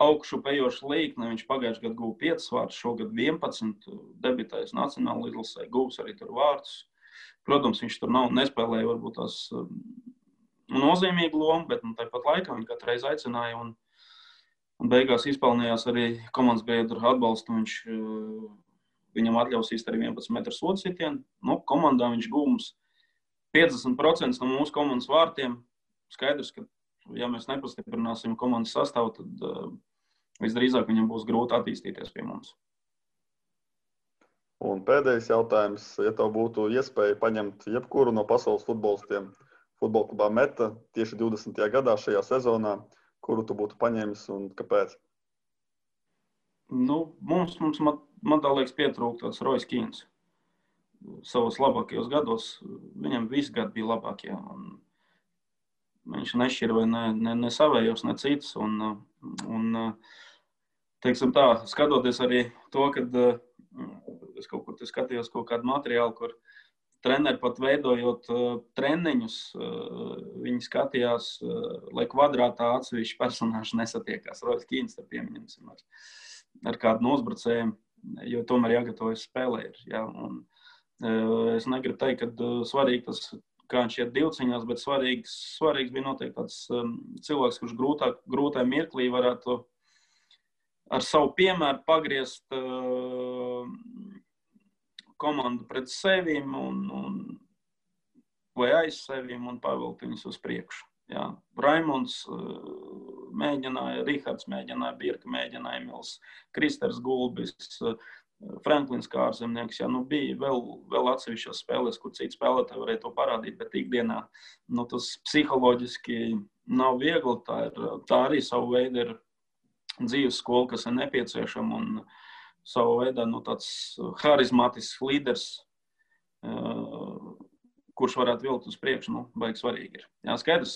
augšu pejoša līkne. Viņš pagājušajā gadā guva 5 vārdus, šogad 11, debitējis nacionāla izlasē, guvs arī tur vārdus. Protams, viņš tur nespēlēja varbūt tās nozīmīgu lomu, bet tāpat laikā viņš katru reizi aicināja un beigās izpelnījās arī komandas biedru atbalstu. Viņam atļaus īsti arī 11 metru sodu sitienu. Komandā viņš gūms 50% no mūsu komandas vārtiem. Skaidrs, ka ja mēs nepastiprināsim komandas sastāvu, tad visdrīzāk viņam būs grūti attīstīties pie mums. Un pēdējais jautājums, ja tev būtu iespēja paņemt jebkuru no pasaules futbolistiem futbola klubā Meta tieši 20. gadā šajā sezonā, kuru tu būtu paņēmis un kāpēc? Man tā liekas pietrūkt tāds Royce Keans. Savos labākajos gados, viņam visi gadi bija labākie. Viņš nešķira vai ne savējos, ne citus. Teiksim tā, skatoties arī to, kad es kaut kur skatījos kaut kādu materiālu, kur treneri pat veidojot treniņus, viņi skatījās, lai kvadrātā atsevišķi personāži nesatiekās. Royce Keans, pieminēsim, ar kādu no uzbrucējiem, jo tomēr jāgatavojas spēlē. Ja? Es negribu teikt, ka svarīgi tas, kā viņš iet divciņās, bet svarīgs bija noteikti tāds cilvēks, kurš grūtā mirklī varētu ar savu piemēru pagriezt komandu pret sevīm vai aiz sevīm un pavilkt viņus uz priekšu. Jā. Raimunds mēģināja, Rihards mēģināja, Birka mēģināja, Emils, Kristers Gulbis, Franklins Kārzemnieks. Jā, bija vēl atsevišķās spēlēs, kur citi spēlētāji varēja to parādīt, bet ikdienā tas psiholoģiski nav viegli. Tā arī savu veidu ir dzīves skola, kas ir nepieciešama un savu veidā tāds harizmātisks līderis, kurš varētu vilkt uz priekšu, baigi svarīgi ir. Jā, skaidrs,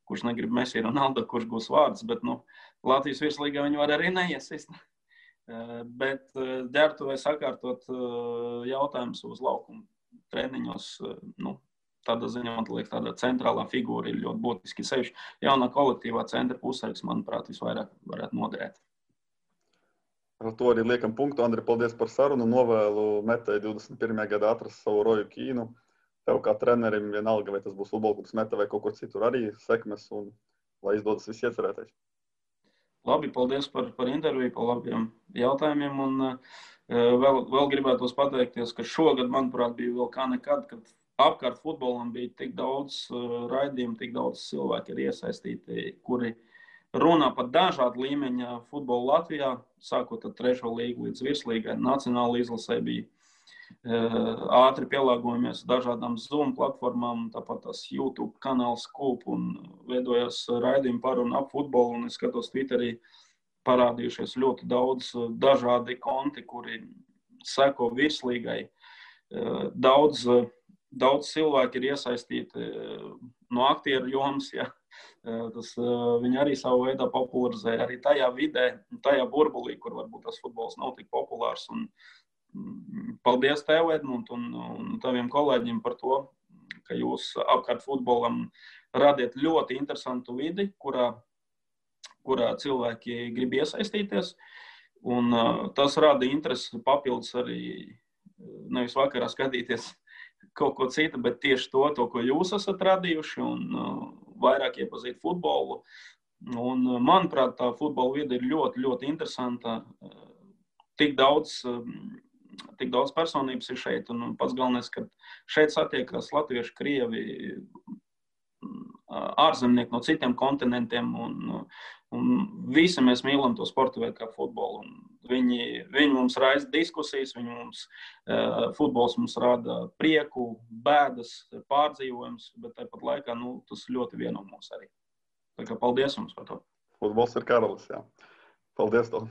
kurš negrib Messi Ronaldo, kurš būs vārds, bet Latvijas virslīgā viņi var arī neiesist. Bet ģērbtuvē sakārtot jautājumus uz laukumu treniņos, tādā ziņā, man liekas, tāda centrālā figūra ir ļoti būtiski. Sevišķi jaunā kolektīvā centra pusargs, manuprāt, visvairāk varētu noderēt. Ar to arī liekam punktu. Andri, paldies par sarunu. Novēlu Metai 21. gadā atrast savu Roju Kīnu. Tev kā trenerim vienalga, vai tas būs futbola klubs Meta vai kaut kur citur arī sekmes un lai izdodas viss iecerētais. Labi, paldies par interviju, par labiem jautājumiem. Un vēl gribētos pateikties, ka šogad, manuprāt, bija vēl kā nekad, kad apkārt futbolam bija tik daudz raidījumu, tik daudz cilvēki ir iesaistīti, kuri runā par dažādu līmeņa futbolu Latvijā, sākot ar 3. līgu līdz virslīgai. Nacionāla izlasē bija ātri pielāgojamies dažādām Zoom platformām, tāpat tās YouTube kanāls Kūp un veidojās raidījumi par un ap futbolu. Un es skatos Twitterī parādījušies ļoti daudz dažādi konti, kuri seko virslīgai. Daudz cilvēki ir iesaistīti no aktieru jomas, ja. Tas viņi arī savu veidā popularizē arī tajā vidē, tajā burbulī, kur varbūt tas futbols nav tik populārs. Un paldies tev, Edmund, un taviem kolēģiem par to, ka jūs apkārt futbolam radiet ļoti interesantu vidi, kurā cilvēki grib iesaistīties. Un tas rada interesi papildus arī nevis vakarā skatīties kaut ko citu, bet tieši to, ko jūs esat radījuši, un vairāk iepazīt futbolu. Un, manuprāt, tā futbola vide ir ļoti, ļoti interesanta. Tik daudz personības ir šeit, un pats galvenais, ka šeit satiekas latvieši, krievi, ārzemnieki no citiem kontinentiem, un visi mēs mīlam to sporta veidu kā futbolu. Viņi mums raisa diskusijas, futbols mums rada prieku, bēdas, pārdzīvojums, bet tāpat laikā tas ļoti vieno mūs arī. Tā kā paldies jums par to. Futbols ir karalis, jā. Paldies tev.